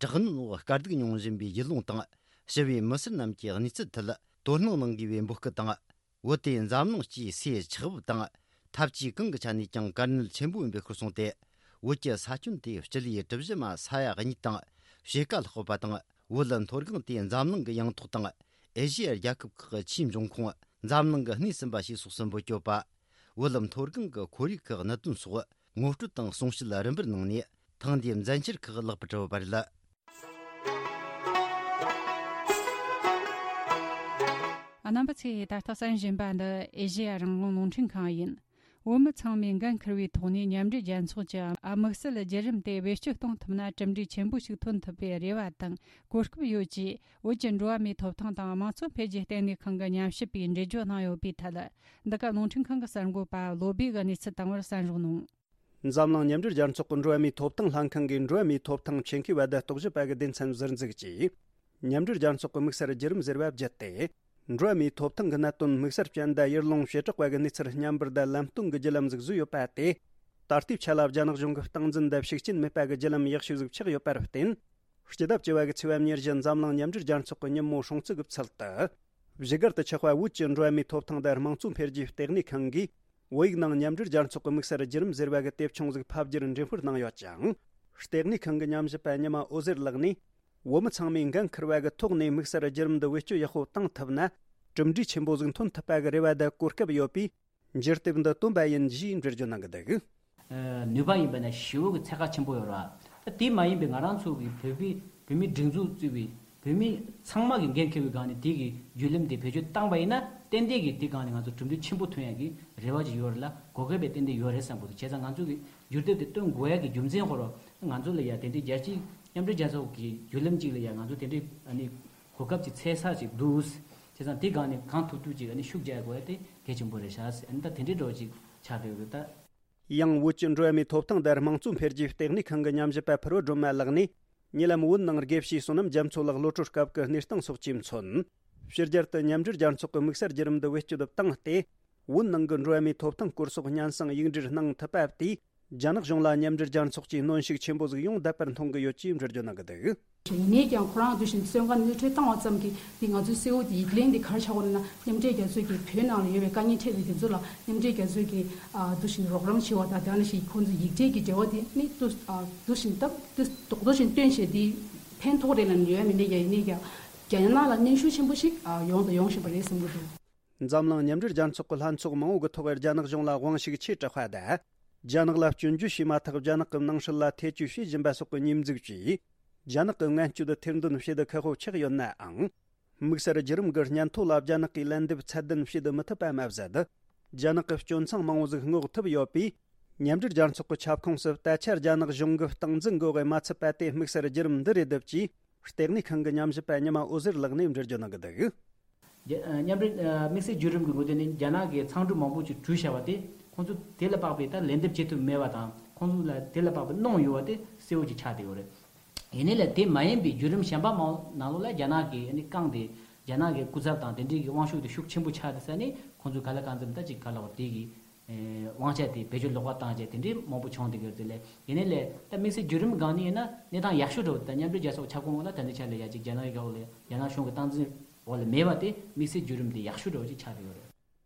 དྲག་གནོན་འོག་དཀའ་སྡུག་མྱོང་བཞིན་པའི་ཡུལ་ལུང་དང་། ཞི་བའི་མི་སེར་རྣམས་ཀྱི་གནས་ཚུལ་ཐད་དོ་སྣང་གནང་དགོས་པའི་འབོད་སྐུལ་དང་། བོད་དེ་འཛམ་གླིང་སྤྱིའི་སའི་ཆགས་བབ་དང་འཐབ་ཇུས་གང་གི་ཆ་ནས་ཀྱང་དཀའ་གནད་ཆེན་པོ་ཡིན་པའི་སྐོར་གསུངས་ཏེ། བོད་ཀྱི་ས་ཁྱོན་དེ་སྤྱི་ལེ་གྲུ་བཞི་མ་ས་ཡ་གཉིས་དང་ཕྱེད་ཀ་ལྷག་པ་དང་ བོད་མཐོ་སྒང་དེ་འཛམ་གླིང་གི་ཡང་ཐོག་དང་། ཨེ་ཤེ་ཡ་རྒྱལ་ཁབ་ཁག་གི་ཆེས་འབྱུང་ཁུངས། འཛམ་གླིང་གི་སྣེ་ཟིན་པ་ཞེས་སོགས་སུ་འབོད་སྐྱོད་པ། བོད་མཐོ་སྒང་གི་ཁོར་ཡུག་གི་གནད་དོན་སོགས་ངོ་སྤྲོད་དང་གསུང་བཤད་རིམ་པར་གནང་ནས། ཐེངས་འདིའི་མཛད་འཆར་ཁག་ལེགས་པར་གྲུབ་པ་རེད། རྣམ་པ་ཚོས་ད་ལྟ་གསན་བཞིན་པ་འདི་ཨེ་ཤེ་ཡ་རང་དབང་རླུང་འཕྲིན་ཁང་ཡིན། བོད་མི་ཚང་མས་འགན་འཁུར་བའི་ཐོག་ནས་མཉམ་འབྲེལ་རྒྱལ་ཚོགས་ཀྱི་དམིགས་བསལ་བརྒྱུད་རིམ་དེ་བེད་སྤྱོད་གཏོང་ཐུབ་ན། གྲུབ་འབྲས་ཆེན་པོ་ཞིག་ཐོན་ཐུབ་པའི་རེ་བ་དང་གོ་སྐབས་ཡོད་ཅེས། བོད་ཀྱི་འགྲོ་བ་མིའི་ཐོབ་ཐང་དང་དམངས་གཙོ་འཕེལ་རྒྱས་ལྟེ་གནས་ཁང་གི་ཉམས་ཞིབ་པས་འགྲེལ་བརྗོད་གནང་ཡོད་པའི་ཐད། འདི་ག་རླུང་འཕྲིན་ཁང་གི་གསར་འགོད་པ་བློ་སྦེ་གིས་གནས་ཚུལ་བཏང་བར་གསན་རོགས་གནང་། འཛམ་གླིང་མཉམ་འབྲེལ་རྒྱལ་ཚོགས་ཀྱི་འགྲོ་བ་མིའི་ཐོབ་ཐང་ལྷན་ཁང་གིས་འགྲོ་བ་མིའི་ཐོབ་ཐང་ཆེད་མཁས་པ་དང་རྟོག་ཞིབ་པ་གི་སྡེ་ཚན་ཟུར་འཛུགས་ཀྱིས། མཉམ་འབྲེལ་རྒྱལ་ཚོགས་ཀྱི་དམིགས་བསལ་བརྒྱུད་རིམ་ཟེར་བ་བརྒྱུད་དེ། འགྲོ་བ་མིའི་ཐོབ་ཐང་གི་གནད་དོན་དམིགས་བསལ་ཅན་དང་ཡུལ་ལུང་བྱེ་བྲག་པ་གི་གནས་ཚུལ་སྙན་པར་དང་ལམ་སྟོན་གྱི་བརྒྱུད་ལམ་ཟིག་བཟོས་ཡོད་པ་དེ། ད་ལྟའི་ཆ་ལ་རྒྱ་ནག་གཞུང་གི་སྟངས་འཛིན་དང་ཤུགས་རྐྱེན་མེད་པ་གི་བརྒྱུད་ལམ་ཡག་ཤོས་ཟིག་ཆགས་ཡོད་པར་བརྟེན། སྤྱི་ཟླ་བཅུ་བ་གི་ཚེས་པ་ཉེར་བཞི་འཛམ་གླིང་མཉམ་འབྲེལ་རྒྱལ་ཚོགས་ཀྱི་ཉིན་མོ་སྲུང་བརྩི་གི་ཚུལ་དུ། བཞུགས་སྒར་དུ་ཆགས་པ་བོད་ཀྱི་འགྲོ་བ་མིའི་ཐོབ་ཐང་དང་དམངས་གཙོ་འཕེལ་རྒྱས་ལྟེ་གནས་ཁང་གིས། བོད་ཡིག་ནང་མཉམ་འབྲེལ་རྒྱལ་ཚོགས་ཀྱི་དམིགས་བསལ་བརྒྱུད་རིམ་ཟེར་བ་གི་དེབ་ཆུང་ཟིག་ཕབ་བསྒྱུར་འགྲེམས་སྤེལ་གནང་ཡོད་ཅིང་། ལྟེ་གནས་ཁང་གི་ཉམས་ཞིབ་པ་ཉི་མ་འོད་ཟེར་ལགས་ནས། བོད་མི་ཚང་མས་འགན་འཁུར་བ་གི་ཐོག་ནས་དམིགས་བསལ་བརྒྱུད་རིམ་འདི་བེད་སྤྱོད་ཡག་པོ་བཏང་ཐུབ་ན། གྲུབ་འབྲས་ཆེན་པོ་ཟིག་ཐོན་ཐུབ་པ་གི་རེ་བ་དང་གོ་སྐབས་ཡོད་པས། འགྱུར་དེབ་འདི་བཏོན་པ་ཡིན་ཞེས་འགྲེལ་བརྗོད་གནང་གི་འདུག། ནུས་པ་ཡིན་པ་ན་ཞེ་པོ་གི་ཚད་བཀག་ཆེན་པོ་ཡོད་རེད་བ། ད་དེ་མ་ཡིན་པའི་ང་རང་ཚོ་གི་བོད་པའི་བོད་མིའི་སྒྲིག་འཛུགས་གཙོས་པའི་བོད་མི་ཚང་མ་གི་འགན་འཁྱེར་བའི་སྒང་ནས་དེ་གི་བརྒྱུད་རིམ་དེ་བེད་སྤྱོད་བཏང་བ་ཡིན་ན། ཏན་ཏན་གྱིས་དེ་སྒང་ནས་ང་ཚོ་གྲུབ་འབྲས་ཆེན་པོ་ཐོན་ཡག་གི་རེ་བ་ཅིག་ཡོད་རེད་ལ། གོ་སྐབས་དཔེ་ཏན་ཏན་ཡོད་རེད་བསམ་གི་འདུག། བྱས་ཙང་ང་ཚོ་གི་འགྱུར་དེབ་དེ་བཏོན་དགོས་ཡག་གི་རྒྱུ་མཚན་ཁོ་རང་ང་ཚོ་ལ་ཡ་དེ་འདྲའི་རྒྱལ་སྤྱིའི་མཉམ་འབྲེལ་རྒྱལ་ཚོགས་ཀྱི་བརྒྱུད་རིམ་ཅིག་ལ་ཡ་ང་ཚོ་དེ་འདྲའི་ཨ་ནི་གོ་སྐབས་ཀྱི་འཚོལ་ས་ཅིག་འདུག། བྱས་ཙང་དེ་སྒང་ནས་གང་ཐུབ་ཐུབ་ཅིག་ཨ་ནི་ཤུགས་རྒྱག་དགོས་ཡག་དེ་གལ་ཆེན་པོ་རེད་ཤག། ཨ་ནི་ད་དེ་འདྲའི་འདྲ་བོ་ཅིག་ཆགས་བསྡད་ཡོད་ད། ཡང་བོད་ཀྱི་འགྲོ་བ་མིའི་ཐོབ་ཐང་དང་དམངས་གཙོ་འཕེལ་རྒྱས་ལྟེ་གནས་ཁང་གི་ཉམས་ཞིབ་པ་ཕུར་བུ་སྒྲོལ་མ་ལགས་ནས། ཉེ་ལམ་བོད་ནང་དགེ་བཤེས་བསོད་ནམས་རྒྱ་མཚོ་ལགས་གློད་གྲོལ་སྐབས་ཀྱི་གནས་སྟངས་སོགས་ཀྱིས་མཚོན། ཕྱི་རྒྱལ་དུ་མཉམ་འབྲེལ་རྒྱལ་ཚོགས་ཀྱི་དམིགས་བསལ་བརྒྱུད་རིམ་འདི་བེད་སྤྱོད་བཏང་སྟེ། བོད་ནང་གི་འགྲོ་བ་མིའི་ཐོབ་ཐང་སྐོར་སོགས་སྙན་སེང་ཡིག་འབྲེལ་གནང་ཐུབ་པ་དེས། རྒྱ་ནག་གཞུང་ལ་མཉམ་འབྲེལ་རྒྱལ་ཚོགས་ཀྱིས་གནོན་ཤུགས་ཆེན་པོ་ཟིག་ཡོང་བསྡད་པར་མཐོང་གི་ཡོད་ཅེས་འགྲེལ་བརྗོད་གནང་གི་འདུག། ཡིན་ནའི་ཀྱང་ཁོ་རང་འདུག་བཞིན་བཙོན་ཁང་ནང་ནུས་ཁྲོད་བཏང་བ་ཙམ་གྱིས་འདི་ང་ཚོའི་གསལ་བོ་དེ་ཡིག་ལན་འདི་ག་རེ་ཆགས་ཀྱི་ཡོད་ན། མཉམ་འབྲེལ་རྒྱལ་ཚོགས་ཀྱིས་བོད་ནང་ལ་ཡོད་པའི་དཀའ་ངལ་འཕྲད་པའི་དེ་ཚོ་ལ་མཉམ་འབྲེལ་རྒྱལ་ཚོགས་ཀྱིས་ཨ་འདུག་བཞིན་རོགས་རམ་བྱེད་པ་དང་། དེ་ནང་བཞིན་ཁོང་ཚོ་ཡིག་འབྲེལ་གྱི་འབྲེལ་བ་དེ་ནི་འདུག་ཨ་འདུག་བཞིན་སྟབས་འདུག་རྡོག་རྡོག་བཞིན་སྟོན་བྱས་དེ་ཕན་ཐོགས་རེད་ལབ་ནས་ཡོད་མིན་ནའི་ཀྱང་། ཡིན་ནའི་ཀྱང་རྒྱ་ནག་ལ་གནོན་ཤུགས་ཆེན་པོ་ཞིག་ཨ་ཡོང་དང་ཡོང་བཞིན་པ་རེད་བསམ་གྱི་འདུག། འཛམ་གླིང་མཉམ་འབྲེལ་རྒྱལ་ཚོགས་ཀྱི་ལྷན་ཚོགས་མང་བོ་གི་ཐོག་རྒྱ་ནག་གཞུང་ལ་དབང་ཤུགས་ཆེ་དྲགས་པ་དང་། རྒྱ་ནག་ལ་སྐྱོན་བརྗོད་བྱས་མ་ཐག་རྒྱ་ནག་གི་ནང་སྲིད་ལ་ཐེ་བྱུས་བྱེད་བཞིན་པ་སོགས་ཀྱི་ཉེས་འཛུགས་ཀྱིས། རྒྱ་ནག་གི་ངན་སྤྱོད་དེ་ཐེར་འདོན་བྱེད་དུ་ཁག་པོ་ཆགས་ཡོད་ནའང་། དམིགས་བསལ་བརྒྱུད་རིམ་གྱི་སྙན་ཐོ་ལ་རྒྱ་ནག་གིས་ལན་འདེབས་ཚད་ལྡན་བྱེད་དུ་མི་ཐུབ་པ་མ་ཟད། རྒྱ་ནག་གི་སྐྱོན་མཚང་མང་བོ་ཟིག་སྔོག་ཐུབ་ཡོད་པས། མཉམ་འབྲེལ་རྒྱལ་ཚོགས་ཀྱི་ཁྱབ་ཁོངས་སུ་ད་ཆ་རྒྱ་ནག་གཞུང་གི་སྟངས་འཛིན་འགོག་གི་མ་ཚུད་པ་དེ་དམིགས་བསལ་བརྒྱུད་རིམ་འདི་རེད་འདུག་ཅེས་ལྟེ་གནས་ཁང་གི་ཉམས་ཞིབ་པ་ཉི་མ་འོད་ཟེར་ལགས་ནས་འགྲེལ་བརྗོད་གནང་གི་འདུག། རྒྱ་ཨ་མཉམ་འབྲེལ་ཨ་དམིགས་བསལ་བརྒྱུད་རིམ་གྱི་ངོས་ནས་རྒྱ་ནག་གིས་མཚང་འབྲུ་མང་པོ་ཅིག་བྲུས་བཞག་པ་དེ་ཁོང་ཚོ་དེ་ལ་དཔག་པའི་ད་ལན་འདེབས་བྱེད་ཐུབ་མེད་པ་དང་། ཁོང་ཚོ་ལ་དེ་ལ་དཔག་པའི་གནོང་ཡོད་པ་དེ་གསལ་བོ་ཅིག་ཆགས་བསྡད་ཡོད་རེད། ཡིན་ནའི་ལས་དེ་མ་ཡིན་པའི་བརྒྱུད་རིམ་གཞན་པ་མང་ནང་ལོགས་ལ་རྒྱ་ནག་གིས་ཨ་ནི་བཀང་སྟེ། རྒྱ་ནག་གི་སྐུ་ཚབ་དང་དེ་འདྲའི་གི་དབང་ཤུགས་དེ་ཤུགས་ཆེན་པོ་ཆགས་བསྡད་ས་ནས། ཁོང་ཚོས་ག་ལ་གང་འཚམ་ད་ཅིག་ག་ལ་བ་དེ་གི་ཨེ་དབང་ཆ་དེ་བེད་སྤྱོད་ལོག་པ་བཏང་བྱས་དེ་འདྲའི་མང་པོ་བྱུང་བསྡད་ཀྱི་ཡོད་དེ་ལས། ཡིན་ནའི་ལས་ད་དམིགས་བསལ་བརྒྱུད་རིམ་སྒང་ནས་ཡིན་ན་གནས་སྟངས་ཡག་ཤོས་འདྲ་བོ། ད་མཉམ་འབྲེལ་རྒྱལ་ཚོགས་ཁྱབ་ཁོངས་ལ་ད་ལྟའི་ཆ་ལ་ཡ་གཅིག་རྒྱ་ནག་གི་འོག་ལ་རྒྱ་ནག་གཞུང་གི་སྟངས་འཛིན་འོག་ལ་མེད་པ་དེ་དམིགས་བསལ་བརྒྱུད་རིམ་དེ་ཡག་ཤོས་འདྲ་བོ་ཅིག་ཆགས་བསྡད་ཡོད་རེད།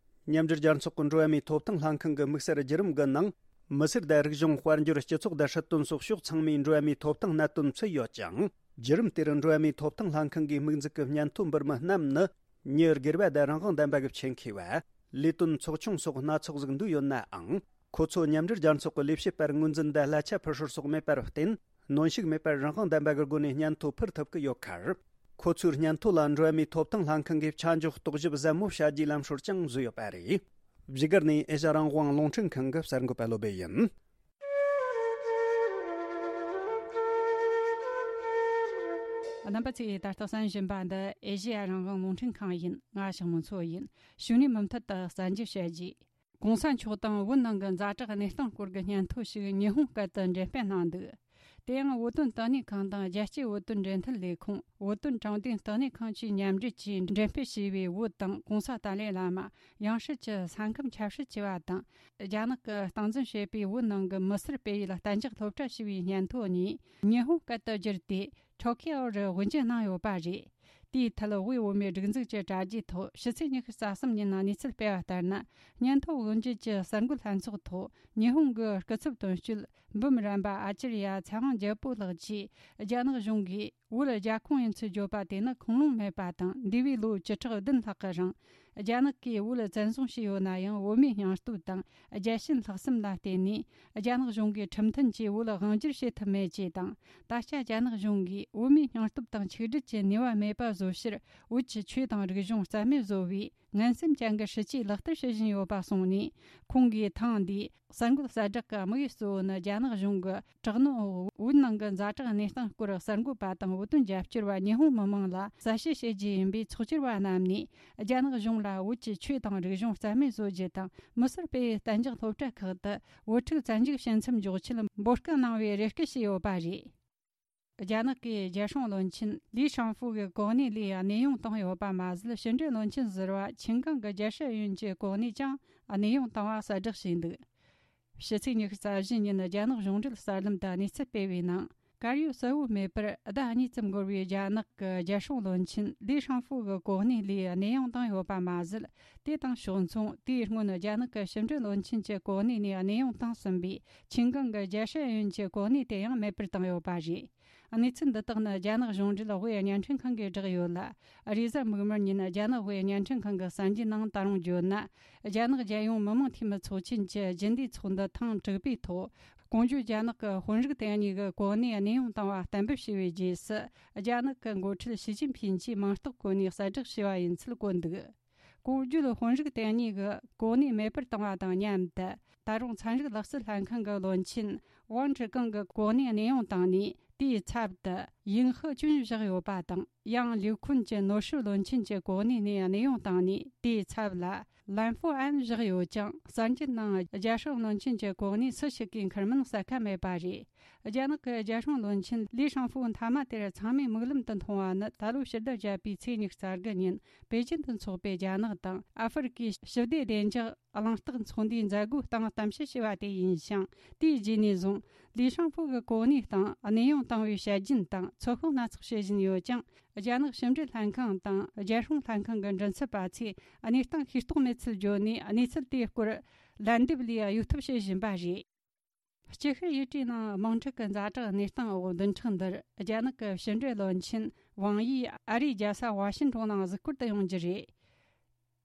མཉམ་འབྲེལ་རྒྱལ་ཚོགས་ཀྱི་འགྲོ་བ་མིའི་ཐོབ་ཐང་ལྷན་ཁང་གི་དམིགས་བསལ་བརྒྱུད་རིམ་གྱི་ནང་། མི་སེར་དང་རིག་གཞུང་དཔལ་འབྱོར་སྤྱི་ཚོགས་དང་སྲིད་དོན་སོགས་ཕྱོགས་ཚང་མའི་འགྲོ་བ་མིའི་ཐོབ་ཐང་གནད་དོན་ཚུད་ཡོད་ཅིང་། བརྒྱུད་རིམ་དེར་འགྲོ་བ་མིའི་ཐོབ་ཐང་ལྷན་ཁང་གི་དམིགས་འཛུགས་ཀྱི་སྙན་ཐོ་འབུལ་མི་རྣམས་ནི། མྱི་སྒེར་བ་དང་རང་དབང་ལྡན་པ་གི་ཆེད་མཁས་པ། ལས་དོན་ཚོགས་ཆུང་སོགས་སྣ་ཚོགས་ཟིག་འདུས་ཡོད་ནའང་། ཁོ་ཚོ་མཉམ་འབྲེལ་རྒྱལ་ཚོགས་ཀྱི་ལས་བྱེད་པར་ངོས་འཛིན་དང་གླ་ཆ་ཕུལ་སྲོལ་སོགས་མེད་པར་བརྟེན། གནོན་ཤུགས་མེད་པར་རང་དབང་ལྡན་པ་གི་སྒོ་ནས་སྙན་ཐོ་ཕུལ་ཐུབ་ཀྱི་ཡོད་ཁར། ཁོ་ཚོའི་སྙན་ཐོ་ལ་འགྲོ་བ་མིའི་ཐོབ་ཐང་ལྷན་ཁང་གིས་ཆ་འཇོག་རྟོག་ཞིབ་ཟབ་མོ་བྱ་རྒྱུའི་ལམ་སྲོལ་ཀྱང་བཟོས་ཡོད་པ་རེད། བཞུགས་སྒར་ནས་ཨེ་ཤ་རང་དབང་རླུང་འཕྲིན་ཁང་གི་གསར་འགོད་པ་བློ་སྦེ་ཡིན། རྣམ་པ་ཚོས་ད་ལྟ་གསན་བཞིན་པ་འདི་ཨེ་ཤེ་ཡ་རང་དབང་རླུང་འཕྲིན་ཁང་ཡིན། ང་ཞང་མུ་མཚོ་ཡིན། ཕྱི་ནས་མུ་མཐུད་དུ་གསར་འགྱུར་བཤད་རྒྱུ། གོང་ས་མཆོག་དང་བོད་ནང་གི་ཛ་དྲག་གནས་སྟངས་སྐོར་གྱི་སྙན་ཐོ་ཞིག་ཉི་ཧོང་སྐད་དུ་འགྲེམས་སྤེལ་གནང་འདུག། དེ་ཡང་བོད་དོན་དོན་གཉེར་ཁང་དང་རྒྱལ་སྤྱིའི་བོད་དོན་འབྲེལ་མཐུད་ལས་ཁུངས། བོད་དོན་དྲང་བདེན་བསྟི་གནས་ཁང་བཅས་མཉམ་འབྲེལ་གྱིས་འགྲེམས་སྤེལ་བྱས་པའི་བོད་དང་གོང་ས་ཏཱ་ལའི་བླ་མ་ཡང་སྲིད་ཀྱི་ས་ཁམས་ཆབ་སྲིད་ཅེས་པ་དང་། རྒྱ་ནག་གིས་སྟངས་འཛིན་བྱེད་པའི་བོད་ནང་གི་མི་སེར་སྤེལ་ཡུལ་གཏན་འཇགས་སློབ་གྲྭ་ཞེས་པའི་སྙན་ཐོ་གཉིས་ཉི་ཧོང་སྐད་དུ་བསྒྱུར་ཏེ། ཊོ་ཀི་ཡོ་རུ་དབུ་འབྱེད་གནང་ཡོད་པ་རེད། དེའི་ཐད་དབུས་བོད་མིའི་སྒྲིག་འཛུགས་ཀྱི་དྲ་རྒྱའི་ཐོག་ཕྱི་ཚེས་ཉི་ཤུ་རྩ་གསུམ་ཉིན་གནས་ཚུལ་སྤེལ་བ་ལྟར་ན། སྙན་ཐོ་འོས་འབྱེད་ཀྱི་གསར་འགོད་ལྷན་ཚོགས་ཐོག་ཉི་ཧོང་གི་སྐུ་ཚབ་དོན་གཅོད་འབུམ་རམས་པ་ཨ་ཅར་ཡ་ཚེ་དབང་རྒྱལ་པོ་ལགས་ཀྱིས། རྒྱ་ནག་གཞུང་གིས་བོད་རྒྱ་ཁོངས་ཡིན་ཚུལ་བརྗོད་པ་དེ་ནི་ཁུངས་ལུང་མེད་པ་དང་། འདས་པའི་ལོ་བཅུ་ཕྲག་བདུན་ལྷག་གི་རིང་། རྒྱ་ནག་གིས་བོད་བཙན་བཟུང་བྱས་ཡོད་ན་ཡང་། བོད་མིའི་སྙིང་སྟོབས་དང་རྒྱལ་ཞེན་ལྷག་བསམ་ལ་བརྟེན་ནས། རྒྱ་ནག་གཞུང་གིས་ཁྲིམས་མཐུན་གྱིས་བོད་དབང་སྒྱུར་བྱེད་ཐུབ་མེད་ཅེས་དང་། ད་ཆ་རྒྱ་ནག་གཞུང་གིས་བོད་མིའི་སྙིང་སྟོབས་དང་ཆིག་སྒྲིལ་གྱི་ནུས་པ་མེད་པ་བཟོ་ཕྱིར། བོད་ཀྱི་ཆོས་དང་རིག་གཞུང་རྩ་མེད་བཟོ་བའི་ངན་སེམས་ཅན་གྱི་སྲིད་ཇུས་ལག་བསྟར་བྱེད་བཞིན་ཡོད་པ་གསུངས་ནས། ཁོང་གིས་ཐེངས་འདིའི་གསར་འགོད་གསལ་བསྒྲགས་ཀྱི་དམིགས་ཡུལ་གཙོ་བོ་ནི། རྒྱ་ནག་གཞུང་གི་དྲག་གནོན་འོག་བོད་ནང་གི་ཛ་དྲག་གནས་སྟངས་སྐོར་གསར་འགོད་པ་དང་བོད་དོན་རྒྱབ་སྐྱོར་བ་ཉི་ཧོང་མི་མང་ལ་གསལ་བཤད་བྱེད་རྒྱུ་ཡིན་པས། ཚོགས་བཅར་བ་རྣམས་ནས་རྒྱ་ནག་གཞུང་ལ་བོད་ཀྱི་ཆོས་དང་རིག་གཞུང་རྩ་མེད་བཟོ་རྒྱུ་དང་། མི་སེར་སྤེལ་བའི་གཏན་འཇགས་སློབ་གྲྭ་ཁག་ཏུ་བོད་ཕྲུག་བཙན་འཇུག་བྱེད་མཚམས་འཇོག་ཆེད་འབོད་སྐུལ་གནང་བའི་རེ་སྐུལ་བྱས་ཡོད་པ་རེད། རྒྱ་ནག་གི་རྒྱལ་སྲུང་བློན་ཆེན་ལི་ཧྲང་ཧྥུ་གི་གོ་གནས་ལས་གནས་དབྱུང་བཏང་ཡོད་པ་མ་ཟད། ཕྱི་འབྲེལ་བློན་ཆེན་ཟུར་པ་ཆིན་ཀང་གི་རྒྱལ་སྲིད་ཨུ་ཡོན་གྱི་གོ་གནས་ཀྱང་གནས་དབྱུང་བཏང་བ་གསལ་བསྒྲགས་བྱས་འདུག། ཕྱི་ཚེས་ཉི་ཤུ་རྩ་བཞི་ཉིན་རྒྱ་ནག་གཞུང་འབྲེལ་གསར་ལམ་དུ་གནས་ཚུལ་སྤེལ་བའི་ནང་། དཀར་ཡོལ་གསལ་བོ་མེད་པར་ཟླ་གཉིས་ཙམ་འགོར་བའི་རྒྱ་ནག་གི་རྒྱལ་སྲུང་བློན་ཆེན་ལི་ཧྲང་ཧྥུ་གི་གོ་གནས་ལས་གནས་དབྱུང་བཏང་ཡོད་པ་མ་ཟད། དེ་དང་ཕྱོགས་མཚུངས། དེའི་སྔོན་རྒྱ་ནག་གི་ཕྱི་འབྲེལ་བློན་ཆེན་གྱི་གོ་གནས་ནས་གནས་དབྱུང་བཏང་ཟིན་པའི་ཆིན་ཀང་གི་རྒྱལ་སྲིད་ཨུ་ཡོན་གྱི་གོ་གནས་དེ་ཡང་མེད་པར་བཏང་ཡོད་པ་རེད། གནས་ཚུལ་འདི་དག་ནི་རྒྱ་ནག་གཞུང་འབྲེལ་དབུས་བརྙན་འཕྲིན་ཁང་གིས་བསྒྲགས་ཡོད་ལ། རེས་གཟའ་མིག་དམར་ཉིན་རྒྱ་ནག་དབུས་བརྙན་འཕྲིན་ཁང་གི་གསར་འགྱུར་ནང་ད་རུང་བརྗོད་ན། རྒྱ་ནག་རྒྱལ་ཡོངས་མི་དམངས་འཐུས་མི་ཚོགས་ཆེན་གྱི་རྒྱུན་ལས་ཚོགས་འདུ་ཐེངས་དྲུག་པའི་ཐོག། གོང་བརྗོད་རྒྱ་ནག་གི་དཔོན་རིགས་དེ་གཉིས་ཀྱི་གོ་གནས་གནས་དབྱུང་བཏང་བ་གཏན་འབེབས་བྱས་པའི་རྗེས་སུ། རྒྱ་ནག་གི་འགོ་ཁྲིད་ཞི་ཅིན་ཕིན་གྱིས་མིང་རྟགས་བཀོད་ནས་གསལ་བསྒྲགས་བྱས་པ་ཡིན་ཚུལ་བཀོད་འདུག། གོང་བརྗོད་དཔོན་རིགས་དེ་གཉིས་ཀྱི་གོ་གནས་མེད་པར་བཏང་བ་དང་མཉམ་དུ། ད་རུང་ཚན་རིག་ལག་རྩལ་ལྷན་ཁང་གི་བློན་ཆེན་ཝང་ཀྲི་ཀང་གི་གོ་གནས་གནས་དབྱུང་བཏང་ནས། དེའི་ཚབ་ཏུ་ཡིང་ཧི་ཅུན་བཞག་ཡོད་པ་དང་། ཡང་ལིའུ་ཁུན་གྱི་ནོར་སྲིད་བློན་ཆེན་གྱི་གོ་གནས་ནས་གནས་དབྱུང་བཏང་ནས། དེའི་ཚབ་ལ་ལན་ཧྥུ་ཨན་བཞག་ཡོད་ཀྱང་། གསར་འགྱུར་ནང་རྒྱལ་སྲུང་བློན་ཆེན་གྱི་གོ་གནས་སུ་ཞིག་གིས་འཁུར་མིན་གསལ་ཁ་མེད་པ་རེད། རྒྱ་ནག་གི་རྒྱལ་སྲུང་བློན་ཆེན་ལི་ཧྲང་ཧྥུ་མཐའ་མ་དེར་ཚང་མས་མིག་ལམ་དུ་མཐོང་བ་ནི། ད་ལོའི་ཕྱི་ཟླ་བརྒྱད་པའི་ཚེས་ཉི་ཤུ་རྩ་དགུ་ཉིན་པེ་ཅིན་དུ་འཚོགས་པའི་རྒྱ་ནག་དང་ཨ་ཧྥེ་རི་ཁའི་ཞི་བདེ་བདེ་འཇགས་གླེང་སྟེགས་ཚོགས་འདུའི་མཛད་སྒོའི་སྟེང་གཏམ་བཤད་བྱས་པ་དེ་ཡིན་ཞིང་། དེའི་རྗེས་ནས་བཟུང་ལི་ཧྲང་ཧྥུ་གི་གོ་གནས་སྟེང་གནས་དབྱུང་བཏང་བའི་དཔྱད་རྒྱུན་དང་ཚོད་དཔག་སྣ་ཚོགས་བྱེད་བཞིན་ཡོད་ཀྱང་། རྒྱ་ནག་ཕྱི་འབྲེལ་ལྷན་ཁང་དང་རྒྱལ་སྲུང་ལྷན་ཁང་གི་མགྲིན་ཚབ་པ་ཚོས་གནས་སྟངས་ཤེས་རྟོགས་མེད་ཚུལ་བརྗོད་ནས། གནས་ཚུལ་དེའི་སྐོར་ལན་འདེབས་ལས་གཡོལ་ཐབས་བྱེད་བཞིན་པ་རེད། སྐྱིད་ཤོད་ཡུལ་གྲུའི་ནང་དམག་འཁྲུག་གི་ཛ་དྲག་གནས་སྟངས་འོག་བདུན་ཕྲག་འདིར་རྒྱ་ནག་གི་ཕྱི་འབྲེལ་བློན་ཆེན་ཝང་ཡི་ཨ་རིའི་རྒྱལ་ས་ཝ་ཤིན་ཀྲུང་ནང་གཟིགས་སྐོར་དུ་ཡོང་རྒྱུ་རེད།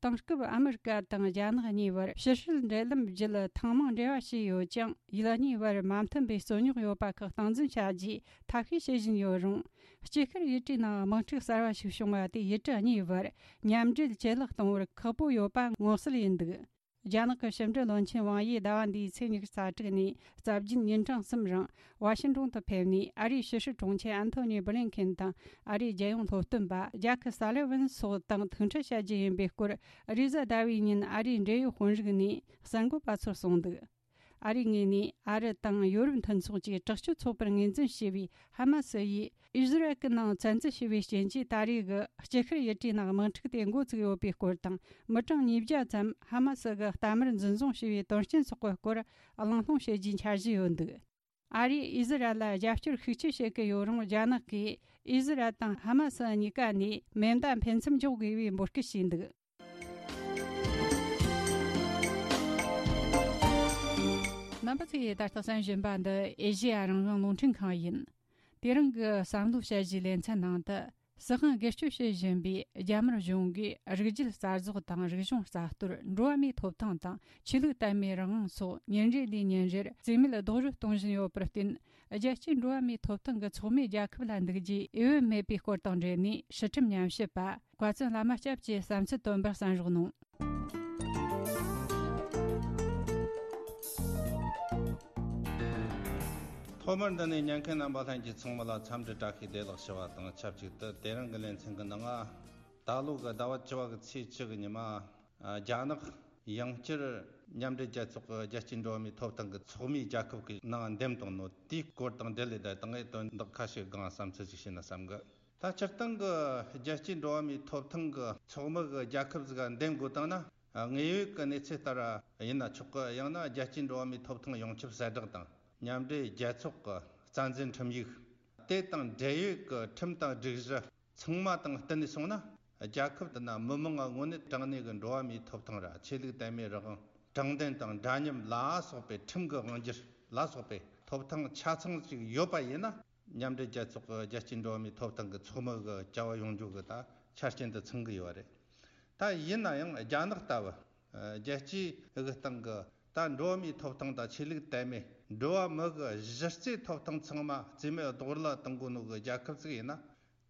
དེང་སྐབས་ཨ་མི་རི་ཀ་དང་རྒྱ་ནག་གཉིས་བར་ཕྱི་སྲིད་འབྲེལ་ལམ་བརྒྱུད་ཐེངས་མང་འབྲེལ་བ་བྱས་ཡོད་ཀྱང་། ཡུལ་གཉིས་བར་མ་མཐུན་པའི་རྩོད་རྙོག་ཡོད་པ་ཁག་སྟངས་འཛིན་བྱ་རྒྱུའི་ཐབས་ཤེས་བྱེད་བཞིན་ཡོད་རུང་། སྐྱིད་ཤོད་ཡུལ་གྲུའི་ནང་དམག་འཁྲུག་གསར་བ་ཞིག་བྱུང་བ་དེས་ཡུལ་གྲུ་གཉིས་བར་མཉམ་འབྲེལ་ཇེ་ལེགས་གཏོང་བར་ཁག་པོ་ཡོད་པ་མངོན་གསལ་ཡིན་འདུག། རྒྱ་ནག་གི་ཕྱི་འབྲེལ་བློན་ཆེན་ཝང་ཡིས་ཟླ་བ་འདིའི་ཚེས་ཉི་ཤུ་རྩ་དྲུག་ནས་རྩ་བརྒྱད་ཉིན་གྲངས་གསུམ་རིང་ཝ་ཤིན་ཀྲུང་དུ་ཕེབས་ནས། ཨ་རིའི་ཕྱི་སྲིད་དྲུང་ཆེ་ཨན་ཐོ་ནི་བྷི་ལིན་ཁེན་དང་ཨ་རིའི་རྒྱལ་ཡོངས་སློབ་སྟོན་པ་ཇཱ་ཁི་སཱ་ལི་ཝན་སོགས་དང་ཐུག་འཕྲད་བྱ་རྒྱུ་ཡིན་པའི་སྐོར། རེས་གཟའ་ཟླ་བའི་ཉིན་ཨ་རིའི་འབྲེལ་ཡོད་དཔོན་རིགས་ནས་གསར་འགོད་པ་ཚོར་གསུངས་འདུག། ཨ་རིའི་ངོས་ནས་ཨ་རི་དང་ཡོ་རོབ་མཐུན་ཚོགས་ཀྱིས་དྲག་སྤྱོད་ཚོགས་པར་ངོས་འཛིན་བྱས་པའི་ཧ་མ་སི་ཡིས་ཨི་ཟི་རལ་གྱི་ནང་བཙན་འཛུལ་བྱས་པའི་རྐྱེན་གྱིས། ད་རེས་ཀྱི་སྐྱིད་ཤོད་ཡུལ་གྲུའི་ནང་དམག་འཁྲུག་དེ་འགོ་བཙུགས་ཡོད་པའི་སྐོར་དང་། མི་གྲངས་ཉིས་བརྒྱ་ཙམ་ཧ་མ་སི་གི་རྟ་དམར་འཛིན་བཟུང་བྱས་པའི་དོན་རྐྱེན་སོགས་ཀྱི་སྐོར་གླེང་སློང་བྱེད་རྒྱུའི་འཆར་གཞི་ཡོད་འདུག། ཨ་རིས་ཨི་ཟི་རལ་ལ་རྒྱབ་སྐྱོར་ཤུགས་ཆེ་བྱེད་ཀྱི་ཡོད་རུང་། རྒྱ་ནག་གིས་ཨི་ཟི་རལ་དང་ཧ་མ་སི་གཉིས་ཀ་ནས་མེ་མདའ་འཕེན་མཚམས་འཇོག་དགོས་པའི་འབོད་སྐུལ་བྱས་འདུག། རྣམ་པ་ཚོས་ད་ལྟ་གསན་བཞིན་པ་འདི་ཨེ་ཤེ་ཡ་རང་དབང་རླུང་འཕྲིན་ཁང་ཡིན། དེ་རིང་གི་བསམ་བློ་དཔྱད་གཞིའི་ལེ་ཚན་ནང་དུ། སྲིད་དབང་སྒེར་གཅོད་བྱེད་བཞིན་པའི་རྒྱ་དམར་གཞུང་གིས་རིགས་རྒྱུད་རྩ་རྫོགས་དང་། རིག་གཞུང་རྩ་གཏོར། འགྲོ་བ་མིའི་ཐོབ་ཐང་དང་། ཆོས་ལུགས་དད་མོས་རང་དབང་སོགས་ཉིན་རེ་ལས་ཉིན་རེར་རྩིས་མེད་རྡོག་རོལ་གཏོང་བཞིན་ཡོད་པར་བརྟེན། རྒྱལ་སྤྱིའི་འགྲོ་བ་མིའི་ཐོབ་ཐང་གི་ཚོགས་མིའི་རྒྱལ་ཁབ་ལ་འདུག་རྒྱུའི་འོས་བབ་མེད་པའི་སྐོར་དང་འབྲེལ་ནས། སྲིད་ཁྲིམས་ཉམས་ཞིབ་པ་ཀྭ་བཙུན་བླ་མ་སྐྱབས་ཀྱིས་བསམ་ཚུལ་བཏོན་པར་གསན་རོགས་གནང་། ཐོག་མར་འདི་ནས་ཉན་མཁན་རྣམ་པ་ལྷན་རྒྱས་ཚང་མ་ལ་འཚམས་འདྲི་བཀྲ་ཤིས་བདེ་ལེགས་ཞུ་བ་དང་ཆབས་ཅིག་ཏུ། དེ་རིང་གི་ལེ་ཚན་གྱི་ནང་ང་། ད་ལོ་གི་ཟླ་བ་བཅུ་བ་གི་ཚེས་བཅུ་གི་ཉི་མ། རྒྱ་ནག་ཡང་བསྐྱར་མཉམ་འབྲེལ་རྒྱལ་ཚོགས་ཀྱི་རྒྱལ་སྤྱིའི་འགྲོ་བ་མིའི་ཐོབ་ཐང་གི་ཚོགས་མིའི་རྒྱལ་ཁབ་ཀྱི་ནང་འདེམས་བཏང་ནོ་དེའི་སྐོར་དང་འབྲེལ་ལས། ད་དང་ངས་དོན་དག་ཁ་ཤས་སྒང་བསམ་ཚུལ་ཅིག་བཤད་ན་བསམ་གི། ད་སྤྱིར་བཏང་གི་རྒྱལ་སྤྱིའི་འགྲོ་བ་མིའི་ཐོབ་ཐང་གི་ཚོགས་མི་གི་རྒྱལ་ཁབ་ཟིག་ག་འདེམས་དགོས་བཏང་ན། དངོས་ཡོད་ཀྱི་གནས་ཚུལ་ལྟར་ཡིན་ན་ཆོག་གི། ཡང་ན་རྒྱལ་སྤྱིའི་འགྲོ་བ་མིའི་ཐོབ་ཐང་ཡོངས་ཁྱབ་གསལ་བསྒྲགས་དང་། མཉམ་འབྲེལ་རྒྱལ་ཚོགས་ཀྱི་རྩ་འཛིན་ཁྲིམས་ཡིག་དེ་དང་འབྲེལ་ཡོད་ཀྱི་ཁྲིམས་དང་སྒྲིག་གཞི་ ཚང་མ་དང་བསྟུན་ནས་སོང་ན། རྒྱལ་ཁབ་དེ་ན་མི་མང་ང་དངོས་གནས་དྲང་གནས་ཀྱི་འགྲོ་བ་མིའི་ཐོབ་ཐང་ར་ཆོས་ལུགས་དད་མོས་རང་དབང་དྲང་བདེན་དང་འདྲ་མཉམ་ལ་སོགས་པའི་ཁྲིམས་ཀྱི་དབང་སྒྱུར་ལ་སོགས་པའི་ཐོབ་ཐང་ཆ་ཚང་ཞིག་ཡོད་པ་ཡིན་ན། མཉམ་འབྲེལ་རྒྱལ་ཚོགས་ཀྱི་རྒྱལ་སྤྱིའི་འགྲོ་བ་མིའི་ཐོབ་ཐང་གི་ཚོགས་མི་གི་བྱ་བ་ཡོང་རྒྱུ་གི་ད་ཆ་རྐྱེན་དུ་ཚང་གི་ཡོད་རེད། ད་ཡིན་ན་ཡང་རྒྱ་ནག་ལྟ་བུ་རྒྱལ་སྤྱིའི་གི་སྟེང་གི་ད་འགྲོ་བ་མིའི་ཐོབ་ཐང་དང་ཆོས་ལུགས་དད་མོས། འགྲོ་བ་མི་གི་གཞི་རྩའི་ཐོབ་ཐང་ཚང་མ་རྩིས་མེད་རྡོག་རོལ་གཏོང་གོ་ནོ་གི་རྒྱལ་ཁབ་ཅིག་ཡིན་ན།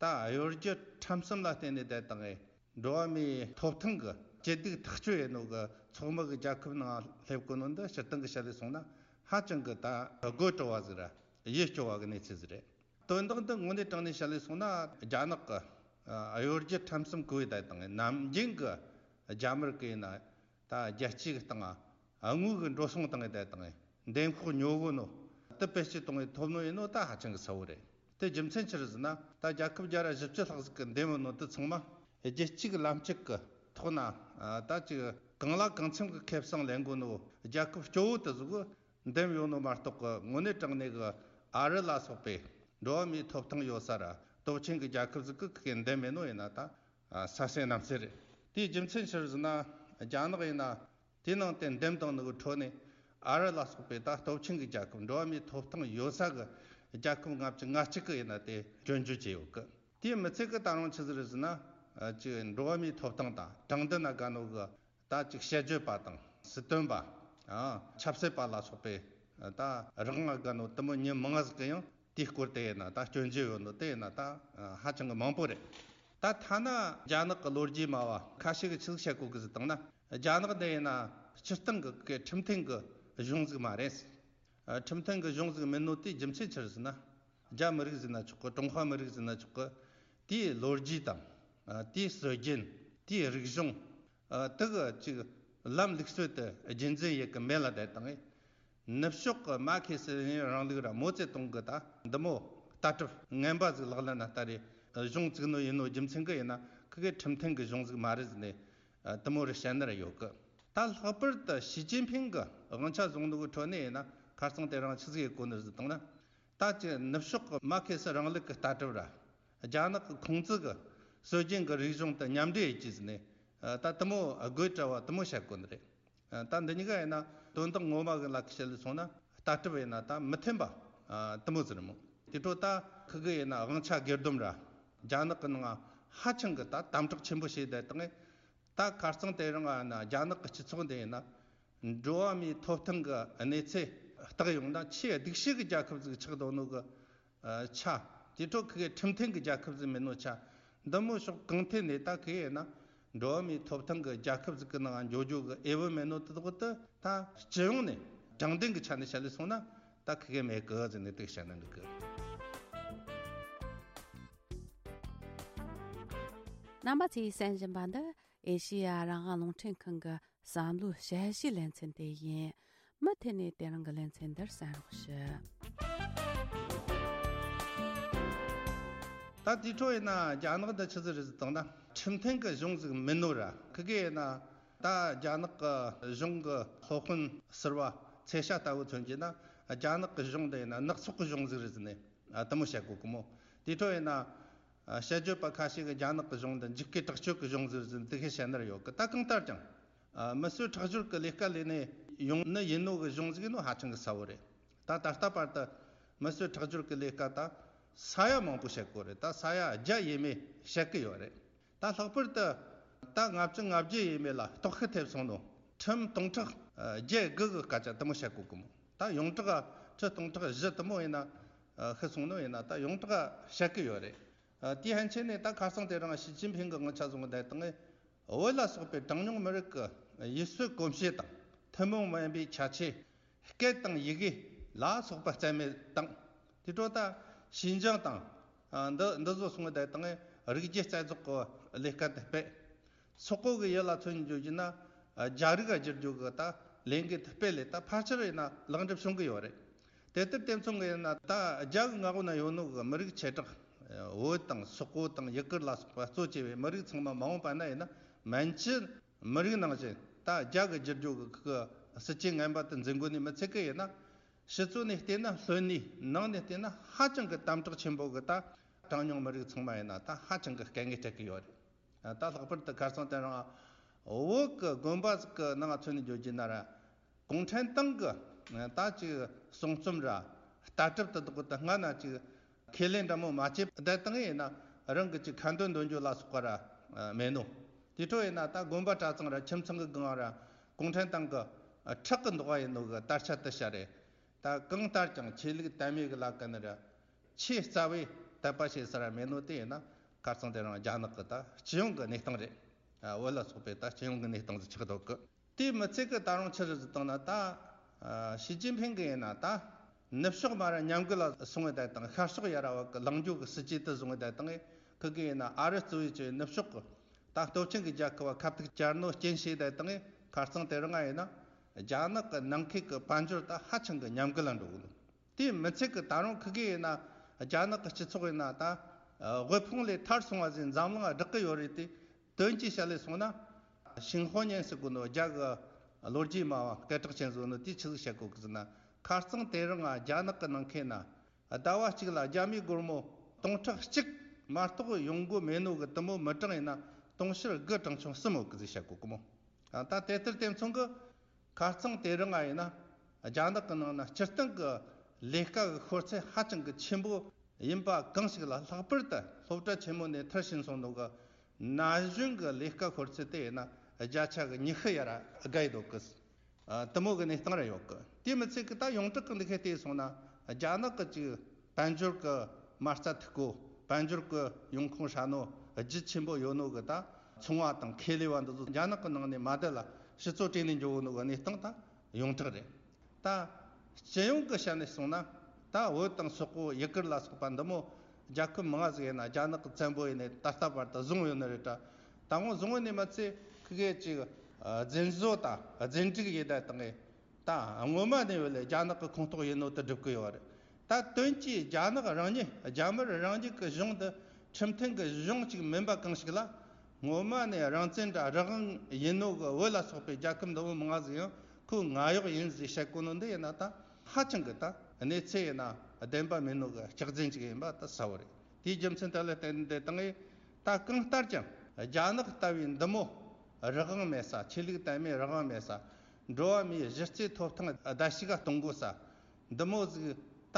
ད་གཡོ་སྒྱུ་ཁྲམ་གསུམ་ལ་བརྟེན་ནས་བསྡད་བཏང་ངེ་འགྲོ་བ་མིའི་ཐོབ་ཐང་གི་སྐྱིད་སྡུག་ཐག་གཅོད་ཡེད་ནོ་གི་ཚོགས་མི་གི་རྒྱལ་ཁབ་ནང་སླེབས་གོ་ནོ་འདི་སྤྱིར་བཏང་གི་བཤད་ལས་སོང་ན་ཧ་ཅང་གི་ད་དགོད་བྲོ་བ་ཟིག་ར་ཡིད་སྐྱོ་བ་གི་གནས་ཚུལ་ཟིག་རེད། དོན་དག་འདི་དངོས་གནས་དྲང་གནས་བཤད་ལས་སོང་ན། རྒྱ་ནག་གི་གཡོ་སྒྱུ་ཁྲམ་གསུམ་གོ་བའི་བསྡད་བཏང་ངེ་ནམ་རྒྱུན་གི་རྒྱ་དམར་གི་ཡིན་ན། ད་རྒྱལ་སྤྱི་གི་སྟེང་ང་དངུལ་གི་འགྲོ་སོང་བཏང་ངེ་བསྡད་བཏང་ངེ་འདེམས་ཤོག་ཉོ་གོ་ནོ་དེ་བེད་སྤྱོད་གཏོང་ངེ་ཐོབ་ནོ་ཡིན་ནོ་ད་ཧ་ཅང་གི་གསལ་བོ་རེད། དེ་རྒྱུ་མཚན་ཆི་རེད་ཟེར་ན། ད་རྒྱལ་ཁབ་བརྒྱ་ར་བཞི་བཅུ་ལྷག་ཟིག་གི་འདེམས་ཡོད་ནོ་དེ་ཚང་མ་རྒྱལ་སྤྱི་གི་ལམ་སྤྱོད་གི་ཐོག་ན་ད་ཅིག་གང་ལ་གང་འཚམ་གི་ཁེ་བཟང་ལེན་གོ་ནོ་རྒྱལ་ཁབ་སྐྱོ་བོ་དེ་ཟིག་གི་འདེམས་ཡོད་ནོ་མ་གཏོགས་གི་དངོས་གནས་དྲང་གནས་གི་ཨ་རི་ལ་སོགས་པའི་འགྲོ་བ་མིའི་ཐོབ་ཐང་ཡོད་ས་ར་སྟོབས་ཆེན་གི་རྒྱལ་ཁབ་ཟིག་གི་གི་འདེམས་མེད་ནོ་ཡིན་ན་ད། ཨ། ས་སེ་གནམ་སེ་རེད། དེའི་རྒྱུ་མཚན་ཆི་རེད་ཟེར་ན། རྒྱ་ནག་ཡིན་ན་དེའི་ནང་དེ་འདེམས་བཏང་ནོ་གི་ཁྲོད་ནས་ཨ་རི་ལ་སོགས་པའི་ད་སྟོབས་ཆེན་གི་རྒྱལ་ཁབ། འགྲོ་བ་མིའི་ཐོབ་ཐང་ཡོད་ས་གི་རྒྱལ་ཁབ་ལྔ་བཅུ་ང་གཅིག་གི་ཡིན་ན་དེ་སྐྱོན་བརྗོད་བྱས་ཡོད་གི། དེའི་མི་ཚད་གི་ད་རུང་ཆི་ཟིག་རེད་ཟེར་ན། ཨ། ཅིག་འགྲོ་བ་མིའི་ཐོབ་ཐང་དང་དྲང་བདེན་ན་དགའ་ནོ་གི་ད་ཅིག་དཔྱད་བརྗོད་པ་དང་སྲིད་དོན་པ། ཨ། ཆབ་སྲིད་པ་ལ་སོགས་པའི་ད་རང་ང་དགའ་ནོ་དེ་མོ་མྱི་མང་ང་ཟིག་གི་ཡང་དེའི་སྐོར་དེ་ཡིན་ན་ད་སྐྱོན་བརྗོད་ཡོད་ནོ་དེ་ཡིན་ན་ད་ཧ་ཅང་གི་མང་པོ་རེད། ད་ཐ་ན་རྒྱ་ནག་གི་ལོ་རྒྱུས་སྨྲ་བ་ཁ་ཤས་ཀྱིས་ཆི་ཟིག་བཤད་གོ་གི་ཟེར་བཏང་ན། རྒྱ་ནག་འདི་ཡིན་ན་སྤྱིར་བཏང་གི་གི་ཁྲིམས་མཐུན་གི་གཞུང་ཟིག་མ་རེད། ཨ། ཁྲིམས་མཐུན་གི་གཞུང་ཟིག་མིན་ནོ་དེའི་རྒྱུ་མཚན་ཆི་རེད་ཟེར་ན། རྒྱ་མི་རིགས་ཟེར་ན་ཆོག་གི། ཀྲུང་ཧྭ་མི་རིགས་ཟེར་ན་ཆོག་གི། དེའི་ལོ་རྒྱུས་དང་། ཨ། དེའི་སྲོལ་རྒྱུན། དེའི་རིག་གཞུང་། ཨ། དེ་གི་ཅིག་ལམ་ལུགས་སྲོལ་དེ་རྒྱུན་འཛིན་ཡེད་གི་མེད་ལ་བསྡད་བཏང་ངེ་ནུབ་ཕྱོགས་གི་མར་ཁེ་སི་ལེ་ནིན་རིང་ལུགས་ར་མའོ་ཙེ་ཏུང་གི་ད་འདི་མོ་ལྟ་གྲུབ་ངན་པ་ཟིག་ལག་ལེན་ན་བསྟར་རེ་གཞུང་བཙུགས་ནོ་ཡིན་ནོ་རྒྱུ་མཚན་གི་ཡིན་ན། ཁི་གེ་ཁྲིམས་མཐུན་གི་གཞུང་ཟིག་མ་རེད་ཟེར་ནས། ཨ། དེ་མོ་རེ་བཤད་ནི་ར་ཡོད་གི། ད་ལྷག་པར་དུ་ཞི་ཅིན་ཕིང་གི་དབང་ཆ་བཟུང་ནོ་གི་ཁྲོད་ནས་ཡིན་ན་ཁ་རྩང་དེ་རིང་ཆི་ཟིག་ཡེད་གོ་ནི་རེད་ཟེར་བཏང་ན། ད་ཅི་ནུབ་ཕྱོགས་ཀྱི་མར་ཁེ་སི་རིང་ལུགས་ཀྱི་ལྟ་གྲུབ་ར། རྒྱ་ནག་གི་ཁུང་ཙི་གི་སྲོལ་རྒྱུན་གྱི་རིག་གཞུང་དང་མཉམ་འདྲེས་ཡེད་རྒྱུ་ཟེར་ནས། ད་དེ་མོ་དགོད་བྲ་བ་དེ་མོ་བཤད་གོ་ནི་རེད། ད་འདི་གཉིས་ཀ་ཡིན་ན་དོན་དག་ངོ་མ་གི་ལ་ཁ་བཤད་ལས་སོང་ན་ལྟ་གྲུབ་ཡིན་ན་ད་མི་མཐུན་པ་དེ་མོ་ཟེར་མོ། དེ་འཕྲོ་ད་ཁི་གི་ཡིན་ན་དབང་ཆ་སྒེར་སྡོམ་ར། རྒྱ་ནག་གི་ནང་ཧ་ཅང་གི་ད་དམ་དྲག་ཆེན་པོ་བྱས་བསྡད་བཏང་ངེ་ད་ཁ་རྩང་དེ་རིང་ང་ན་རྒྱ་ནག་གི་སྤྱི་ཚོགས་འདི་ཡིན་ན། འགྲོ་བ་མིའི་ཐོབ་ཐང་གི་གནས་ཚད་བརྟག་ཡོང་ན་ཆེས་སྡུག་ཤོས་ཀྱི་རྒྱལ་ཁབ་ཟིག་ཆགས་འདུག་ནོ་གི། ཨ། ཆ། དེ་འཕྲོ་ཁི་གེ་ཁྲིམས་མཐུན་གྱི་རྒྱལ་ཁབ་ཟིག་མིན་ནོ་ཆ། འདི་མོ་ཕྱོགས་གང་ཐད་ནས་ད་ཁི་གེ་ཡིན་ན་འགྲོ་བ་མིའི་ཐོབ་ཐང་གི་རྒྱལ་ཁབ་ཟིག་གི་ནང་འགྱོ་རྒྱུ་གི་འོས་བབ་མེད་ནོ་དེ་དག་དེ་ད་སྤྱི་ཡོངས་ནས་དྲང་བདེན་གྱི་ཆ་ནས་བཤད་ལས་སོང་ན་ད་ཁི་གེ་མེད་གི་ཟེར་ནས་དེ་བཤད་ན་འགྲིག་གི། རྣམ་པ་ཚོས་གསན་བཞིན་པ་འདི་ཨེ་ཤེ་ཡ་རང་དབང་རླུང་འཕྲིན་ཁང་གི་བསམ་བློའི་དཔྱད་གཞིའི་ལེ་ཚན་དེ་ཡིན། མུ་མཐུད་ནས་དེ་རིང་གི་ལེ་ཚན་འདིར་གསན་རོགས་ཞུ། ད་དེ་འཕྲོ་ཡིན་ན་རྒྱ་ནག་འདི་ཆི་ཟིག་རེད་ཟེར་བཏང་ན་ཁྲིམས་མཐུན་གྱི་གཞུང་ཟིག་མིན་ནོ་ར། ཁི་གེ་ཡིན་ན་ད་རྒྱ་ནག་གི་གཞུང་གི་སློབ་དཔོན་ཟུར་པ་ཚེ་ཤ་ལྟ་བུ་མཚོན་གྱི་ན་རྒྱ་ནག་གི་གཞུང་འདི་ཡིན་ན་ནག་ཚོགས་ཀྱི་གཞུང་ཟིག་རེད་ཟེར་ནས་དེ་མོ་བཤད་གོ་གི་མོ། དེ་འཕྲོ་ཡིན་ན། ཨ། དཔྱད་བརྗོད་པ་ཁ་ཤས་ཀྱིས་རྒྱ་ནག་གི་གཞུང་འདི་འཇིགས་སྐུལ་དྲག་སྤྱོད་ཀྱི་གཞུང་ཟིག་ཟེར་འདི་གས་བཤད་ནི་ར་ཡོད་གི། ད་གང་ལྟར་ཀྱང་། ཨ། མི་གསོད་ཁྲག་སྦྱོར་གྱི་ལས་ཀ་ལས་ནས་ཡོང་ནི་ཡིན་ནོ་གི་གཞུང་ཟིག་ཡིན་ནོ་ཧ་ཅང་གི་གསལ་བོ་རེད། ད་ད་ལྟ་བར་དུ་མི་གསོད་ཁྲག་སྦྱོར་གྱི་ལས་ཀ་ད་ས་ཡ་མང་པོ་བཤད་གོ་རེད། ད་ས་ཡ་བརྒྱ་ཡས་མས་བཤད་གི་ཡོད་རེད། ད་ལྷག་པར་དུ་ད་ལྔ་བཅུ་ང་བརྒྱད་ཡས་མས་ལ་གཏོར་བཤིག་ཐེབས་སོང་ནོ་ཁྲིམས་སྟོང་ཕྲག་བརྒྱད་དགུ་གི་སྐད་ཆ་དེ་མོ་བཤད་གོ་གི་མོ། ད་ཡོངས་གྲགས་ཁྲི་སྟོང་ཕྲག་བཞི་དེ་མོ་ཡིན་ན། ཨ། ཤི་སོང་ནོ་ཡིན་ན་ད་ཡོངས་གྲགས་བཤད་གི་ཡོད་རེད། ཨ། དེའི་ཕན་ཆད་ནས་ད་ཁ་སང་དེ་རིང་ཞི་ཅིན་ཕིང་གི་དབང་ཆ་བཟུང་བསྡད་བཏང་ངེ་བོད་ལ་སོགས་པའི་གྲངས་ཉུང་མི་རིགས་ཀྱི་ཡུལ་སྲོལ་གོམས་གཤིས་དང་ཐུན་མོང་མ་ཡིན་པའི་ཁྱད་ཆོས། སྐད་དང་ཡི་གེ་ལ་སོགས་པ་རྩ་མེད་བཏང་། དེ་འཕྲོ་ད་ཞིན་ཅང་དང་། ཨ། འདི་འདི་ཚོ་སོང་བསྡད་བཏང་ངེ་རིགས་རྒྱུད་རྩ་རྫོགས་ཀྱི་ལས་ཀ་དེ་སྤེལ། སོག་པོ་གི་ཡུལ་ལ་མཚོན་རྒྱུ་ཡིན་ན། རྒྱ་རིགས་ལ་བསྒྱུར་རྒྱུ་གི་ད་ལས་འགུལ་དེ་སྤེལ་ལས་ད་ཕལ་ཆེར་ཡིན་ན་ལེགས་འགྲུབ་བྱུང་གི་ཡོད་རེད། དེ་ལྟར་དེ་མཚུངས་གི་ཡིན་ན་ད་རྒྱ་གི་མངའ་འོག་ན་ཡོད་ནོ་གི་མི་རིགས་བྱེ་བྲག་བོད་དང་སོག་པོ་དང་ཡུ་གུར་ལ་སོགས་པ་གཙོ་བྱས་པའི་མི་རིགས་ཚང་མ་མ་འོངས་པ་ན་ཡིན་ན་མན་ཇུ་མི་རིགས་ནང་བཞིན་ད་རྒྱ་གི་བསྒྱུར་རྒྱུ་གི་གི་སྲིད་ཇུས་ངན་པ་དེ་འཛིན་དགོས་ནི་མི་ཚད་གི་ཡིན་ན། ཕྱི་ཚུལ་ནས་བལྟས་ན་ལྷོད་ནི། ནང་ནས་བལྟས་ན་ཧ་ཅང་གི་དམ་དྲག་ཆེན་པོ་གི་ད་ གྲངས་ཉུང་མི་རིགས་ཚང་མ་ཡིན་ན་ད་ཧ་ཅང་གི་དཀའ་ངལ་འཕྲད་ཀྱི་ཡོད་རེད། ད་ལྷག་པར་དུ་ཁ་སང་དེ་རིང་བོད་ཀྱི་དགོན་པ་ཟིག་གི་ནང་མཚོན་ནས་བརྗོད་རྒྱུ་ན་ར། གུང་ཁྲན་ཏང་གི་ད་ཅིག་གསུང་རྩོམ་ར་ལྟ་གྲུབ་དེ་དག་གི་ད་སྔ་ན་ཅིག་ཁས་ལེན་འདྲ་མོ་མ་བྱས་བསྡད་བཏང་ཡིན་ན། རང་གི་ཅིག་ཁ་འདོན་འདོན་རྒྱུ་ལ་སོགས་པ་ར་མེད་ནོ། དེ་འཕྲོ་ཡིན་ན་ད་དགོན་པ་གྲྭ་ཚང་ར་ཁྱིམ་ཚང་གི་སྒང་ར་གུང་ཁྲན་ཏང་གི་ཁྲག་གི་མདོག་ཡིན་ནོ་གི་དར་ཆ་དེ་ཤར་རེད། ད་གང་ལྟར་ཀྱང་ཆོས་ལུགས་དད་མོས་གི་ལ་ཀ་ནི་ར་ཆེས་རྩ་བའི་དད་པ་བྱེད་ས་ར་མེད་ནོ་དེ་ཡིན་ན། ཁ་རྩང་དེ་རིང་རྒྱ་ནག་གི་ད་སྤྱི་ཡོངས་གི་གནས་སྟངས་རེད། བོད་ལ་སོགས་པའི་ད་སྤྱི་ཡོངས་གི་གནས་སྟངས་ཟིག་ཆགས་འདུག་གི། དེ་མི་ཚད་གི་ད་རུང་ཆི་རེད་ཟེར་བཏང་ན། ད་ཨ་ཞི་ཅིན་ཕིང་གི་ཡིན་ན་ད་ནུབ་ཕྱོགས་མ་ར་ཉམས་རྒུད་ལ་སོང་བའི་བསྡད་བཏང་། ཤར་ཕྱོགས་ཡ་ར་བ་གི་ལངས་རྒྱུ་གི་སྲིད་ཇུས་དེ་བཟུང་བའི་བསྡད་བཏང་། ཁི་གི་ཡིན་ན་ཨ་རི་གཙོ་བོའི་ཆེ་ནུབ་ཕྱོགས་གི་ད་སྟོབས་ཆེན་གི་རྒྱལ་ཁབ་བ་ཁ་ཐུག་བཅར་ནོ་རྐྱེན་བྱས་བསྡད་བཏང་། ཁ་རྩང་དེ་རིང་ང་ཡིན་ན་རྒྱ་ནག་གི་ནང་ཁུལ་གི་དཔལ་འབྱོར་ད་ཧ་ཅང་གི་ཉམས་རྒུད་ལ་འགྲོ་གི་འདུག། དེ་མི་ཚད་གི་ད་རུང་ཁི་གེ་ཡིན་ན་རྒྱ་ནག་གི་སྤྱི་ཚོགས་ཡིན་ན་ད་དབུལ་ཕོངས་ལས་ཐར་སོང་བ་ཟིག་འཛམ་གླིང་བསྒྲགས་གི་ཡོད་རེད་དེ། དོན་གྱིས་བཤད་ལས་སོང་ན། ཤིང་ཧོ་ཉན་ཟེར་གོ་ནོ་རྒྱ་གི་ལོ་རྒྱུས་སྨྲ་བ་སྐད་གྲགས་ཅན་ཟིག་ནོ་དེ་ཆི་ཟིག་བཤད་གོ་གི་ཟེར་ན། ཁ་རྩང་དེ་རིང་ང་རྒྱ་ནག་གི་ནང་ཁེ་ན་ཟླ་བ་གཅིག་ལ་རྒྱ་མིའི་སྒོར་མོ་སྟོང་ཕྲག་གཅིག་མ་གཏོགས་ཡོང་སྒོ་མེད་ནོ་གི་དེ་མོ་མི་གྲངས་ཡིན་ན་དུང་ཕྱུར་དགུ་གྲངས་ཆུང་གསུམ་ཡོད་གི་ཟེར་བཤད་གོ་གི་མོ། ད་དེ་ལྟར་དེ་མཚུངས་གི། ཁ་རྩང་དེ་རིང་ང་ཡིན་ན་རྒྱ་ནག་གི་ནང་ན་སྤྱིར་བཏང་གི་ལས་ཀ་གི་ཤོར་ཚད་ཧ་ཅང་གི་ཆེན་པོ་ཡིན་པ་གང་ཞིག་ལ། ལྷག་པར་དུ་སློབ་གྲྭ་ཆེན་མོ་ནས་མཐར་ཕྱིན་སོང་ནོ་གི་ན་གཞོན་གི་ལས་ཀ་ཤོར་ཚད་དེ་ཡིན་ན་བརྒྱ་ཆ་གི་ཉི་ཤུ་ཡ་ར་བརྒལ་ཡོད་གི། ཨ་དེ་མོ་གི་གནས་སྟངས་ར་ཡོད་གི། དེ་མི་ཚད་གི་ད་ཡོངས་གྲགས་གི་འདི་ཁའི་བལྟས་སོང་ན་རྒྱ་ནག་གི་ཅིག་དཔལ་འབྱོར་གི་མ་རྩ་མཐུག་གོ། དཔལ་འབྱོར་གི་ཡོང་ཁུངས་ཧྲ་ནོ་རྒྱུ་ཆེན་པོ་ཡོད་ནོ་གི་ད་ཚོང་བ་དང་ཁེ་ལས་བ་འདི་ཚོ་རྒྱ་ནག་གི་ནང་ནས་མ་བསྡད་ལ་ཕྱི་ཚོ་བྲེལ་ནས་འགྱོ་གོ་ནོ་གི་གནས་སྟངས་ད་ཡོངས་གྲགས་རེད། ད་སྤྱི་ཡོངས་གི་བཤད་ནས་སོང་ན། ད་བོད་དང་སོག་པོ་ཡུ་གུར་ལ་སོགས་པ་འདི་མོ་རྒྱལ་ཁབ་མང་ང་ཟིག་ཡིན་ན་རྒྱ་ནག་གི་བཙན་པོ་ཡིན་ནས་ད་ལྟ་བར་དུ་བཟུང་ཡོད་ནི་རེད་ད། ད་ངོ་བཟུང་ཡོད་ནི་མ་ཚད་ཁི་གེ་ཅིག་ཨ་རྫུན་བཟོ་དང་རྫུན་སྒྲིག་ཡེད་བསྡད་བཏང་ངས། ད་སྔོན་མ་ནས་ཡོད་ལས་རྒྱ་ནག་གི་ཁོངས་གཏོགས་ཡིན་ནོ་དེ་སྒྲུབ་གི་ཡོད་རེད། ད་དོན་གྱིས་རྒྱ་ནག་རང་ཉིད་རྒྱ་དམར་རང་ཉིད་ཀྱི་གཞུང་དེ་ཁྲིམས་མཐུན་གྱི་གཞུང་ཅིག་མིན་པ་གང་ཞིག་ལ། སྔོན་མ་ནས་རང་བཙན་དྲ་རང་དབང་ཡིན་ནོ་གི་བོད་ལ་སོགས་པའི་རྒྱལ་ཁབ་འདི་མོ་མང་ང་ཟིག་ཡང་ཁོའི་ང་གཡོག་ཡིན་ཟིག་བཤད་གོ་ནོ་འདི་ཡིན་ན། ད་ཧ་ཅང་གི་ད་གནས་ཚུལ་ཡིན་ན་བདེན་པ་མིན་ནོ་གི་སྐྱག་རྫུན་ཅིག་ཡིན་པ་ད་གསལ་བོ་རེད། དེའི་རྒྱུ་མཚན་དེ་ལ་བརྟེན་ཏེ་དང་ངས་ད་གང་ལྟར་ཀྱང་རྒྱ་ནག་ལྟ་བུའི་འདི་མོ་རང་དབང་མེད་ས། ཆོས་ལུགས་དད་མོས་རང་དབང་མེད་ས། འགྲོ་བ་མིའི་གཞི་རྩའི་ཐོབ་ཐང་བརྡལ་བཤིག་ག་གཏོང་དགོས་ས། འདི་མོ་ཟིག་ད་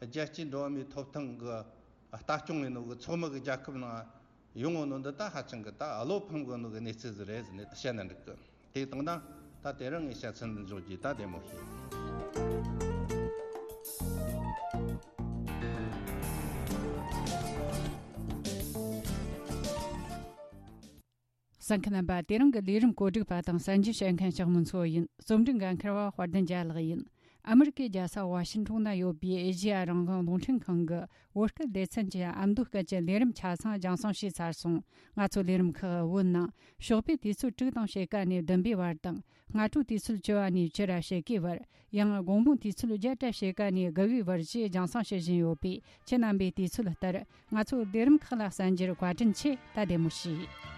རྒྱལ་སྤྱིའི་འགྲོ་བ་མིའི་ཐོབ་ཐང་གི་ལྟ་སྐྱོང་ཡིན་ནོ་གི་ཚོགས་མི་གི་རྒྱལ་ཁབ་ནང་ཡོང་ངོ་ནོ་འདི་ད་ཧ་ཅང་གི་ད་བློ་ཕམ་གོ་ནོ་གི་གནས་ཚུལ་ཟིག་རེད་ཟེར་ནས་བཤད་ན་འགྲིག་གི། དེ་དང་ད་ད་དེ་རིང་ངས་བཤད་ཚུལ་འདི་འཇོག་རྒྱུ་ད་བདེ་མོ་ཞིག། གསན་མཁན་རྣམ་པ། དེ་རིང་གི་ལས་རིམ་གོ་སྒྲིག་པ་དང་གསན་རྒྱུ་བྱེད་མཁན་ལྕགས་མོ་མཚོ་ཡིན། རྩོམ་སྒྲིག་འགན་འཁུར་བ་དཔལ་ལྡན་རྒྱལ་ལགས་ཡིན། ཨ་མི་རི་ཀའི་རྒྱལ་ས་ཝ་ཤིང་ཊོན་ན་ཡོད་པའི་ཨེ་ཤེ་ཡ་རང་དབང་རླུང་འཕྲིན་ཁང་གི་བོད་སྐད་སྡེ་ཚན་གྱི་ཨ་མདོ་སྐད་ཀྱི་ལས་རིམ་ཆ་ཚང་རྒྱང་སྲིང་བྱས་ཚར་སོང་། ང་ཚོ་ལས་རིམ་ཁག་བོད་ནང་ཞོགས་པའི་དུས་ཚོད་དྲུག་དང་ཕྱེད་ཀ་ནས་བདུན་པའི་བར་དང་། སྔ་དྲོའི་དུས་ཚོད་བཅུ་པ་ནས་བཅུ་ར་ཕྱེད་ཀའི་བར། ཡང་དགོང་མོའི་དུས་ཚོད་བརྒྱད་ར་ཕྱེད་ཀ་ནས་དགུ་པའི་བར་བཅས་རྒྱང་སྲིང་བྱེད་བཞིན་ཡོད་པས། ཁྱེད་རྣམ་པས་དུས་ཚོད་ལྟར་ང་ཚོའི་ལས་རིམ་ཁག་ལ་གསན་རྒྱུར་བཀའ་དྲིན་ཆེ། ད་བདེ་མོ་བྱོས།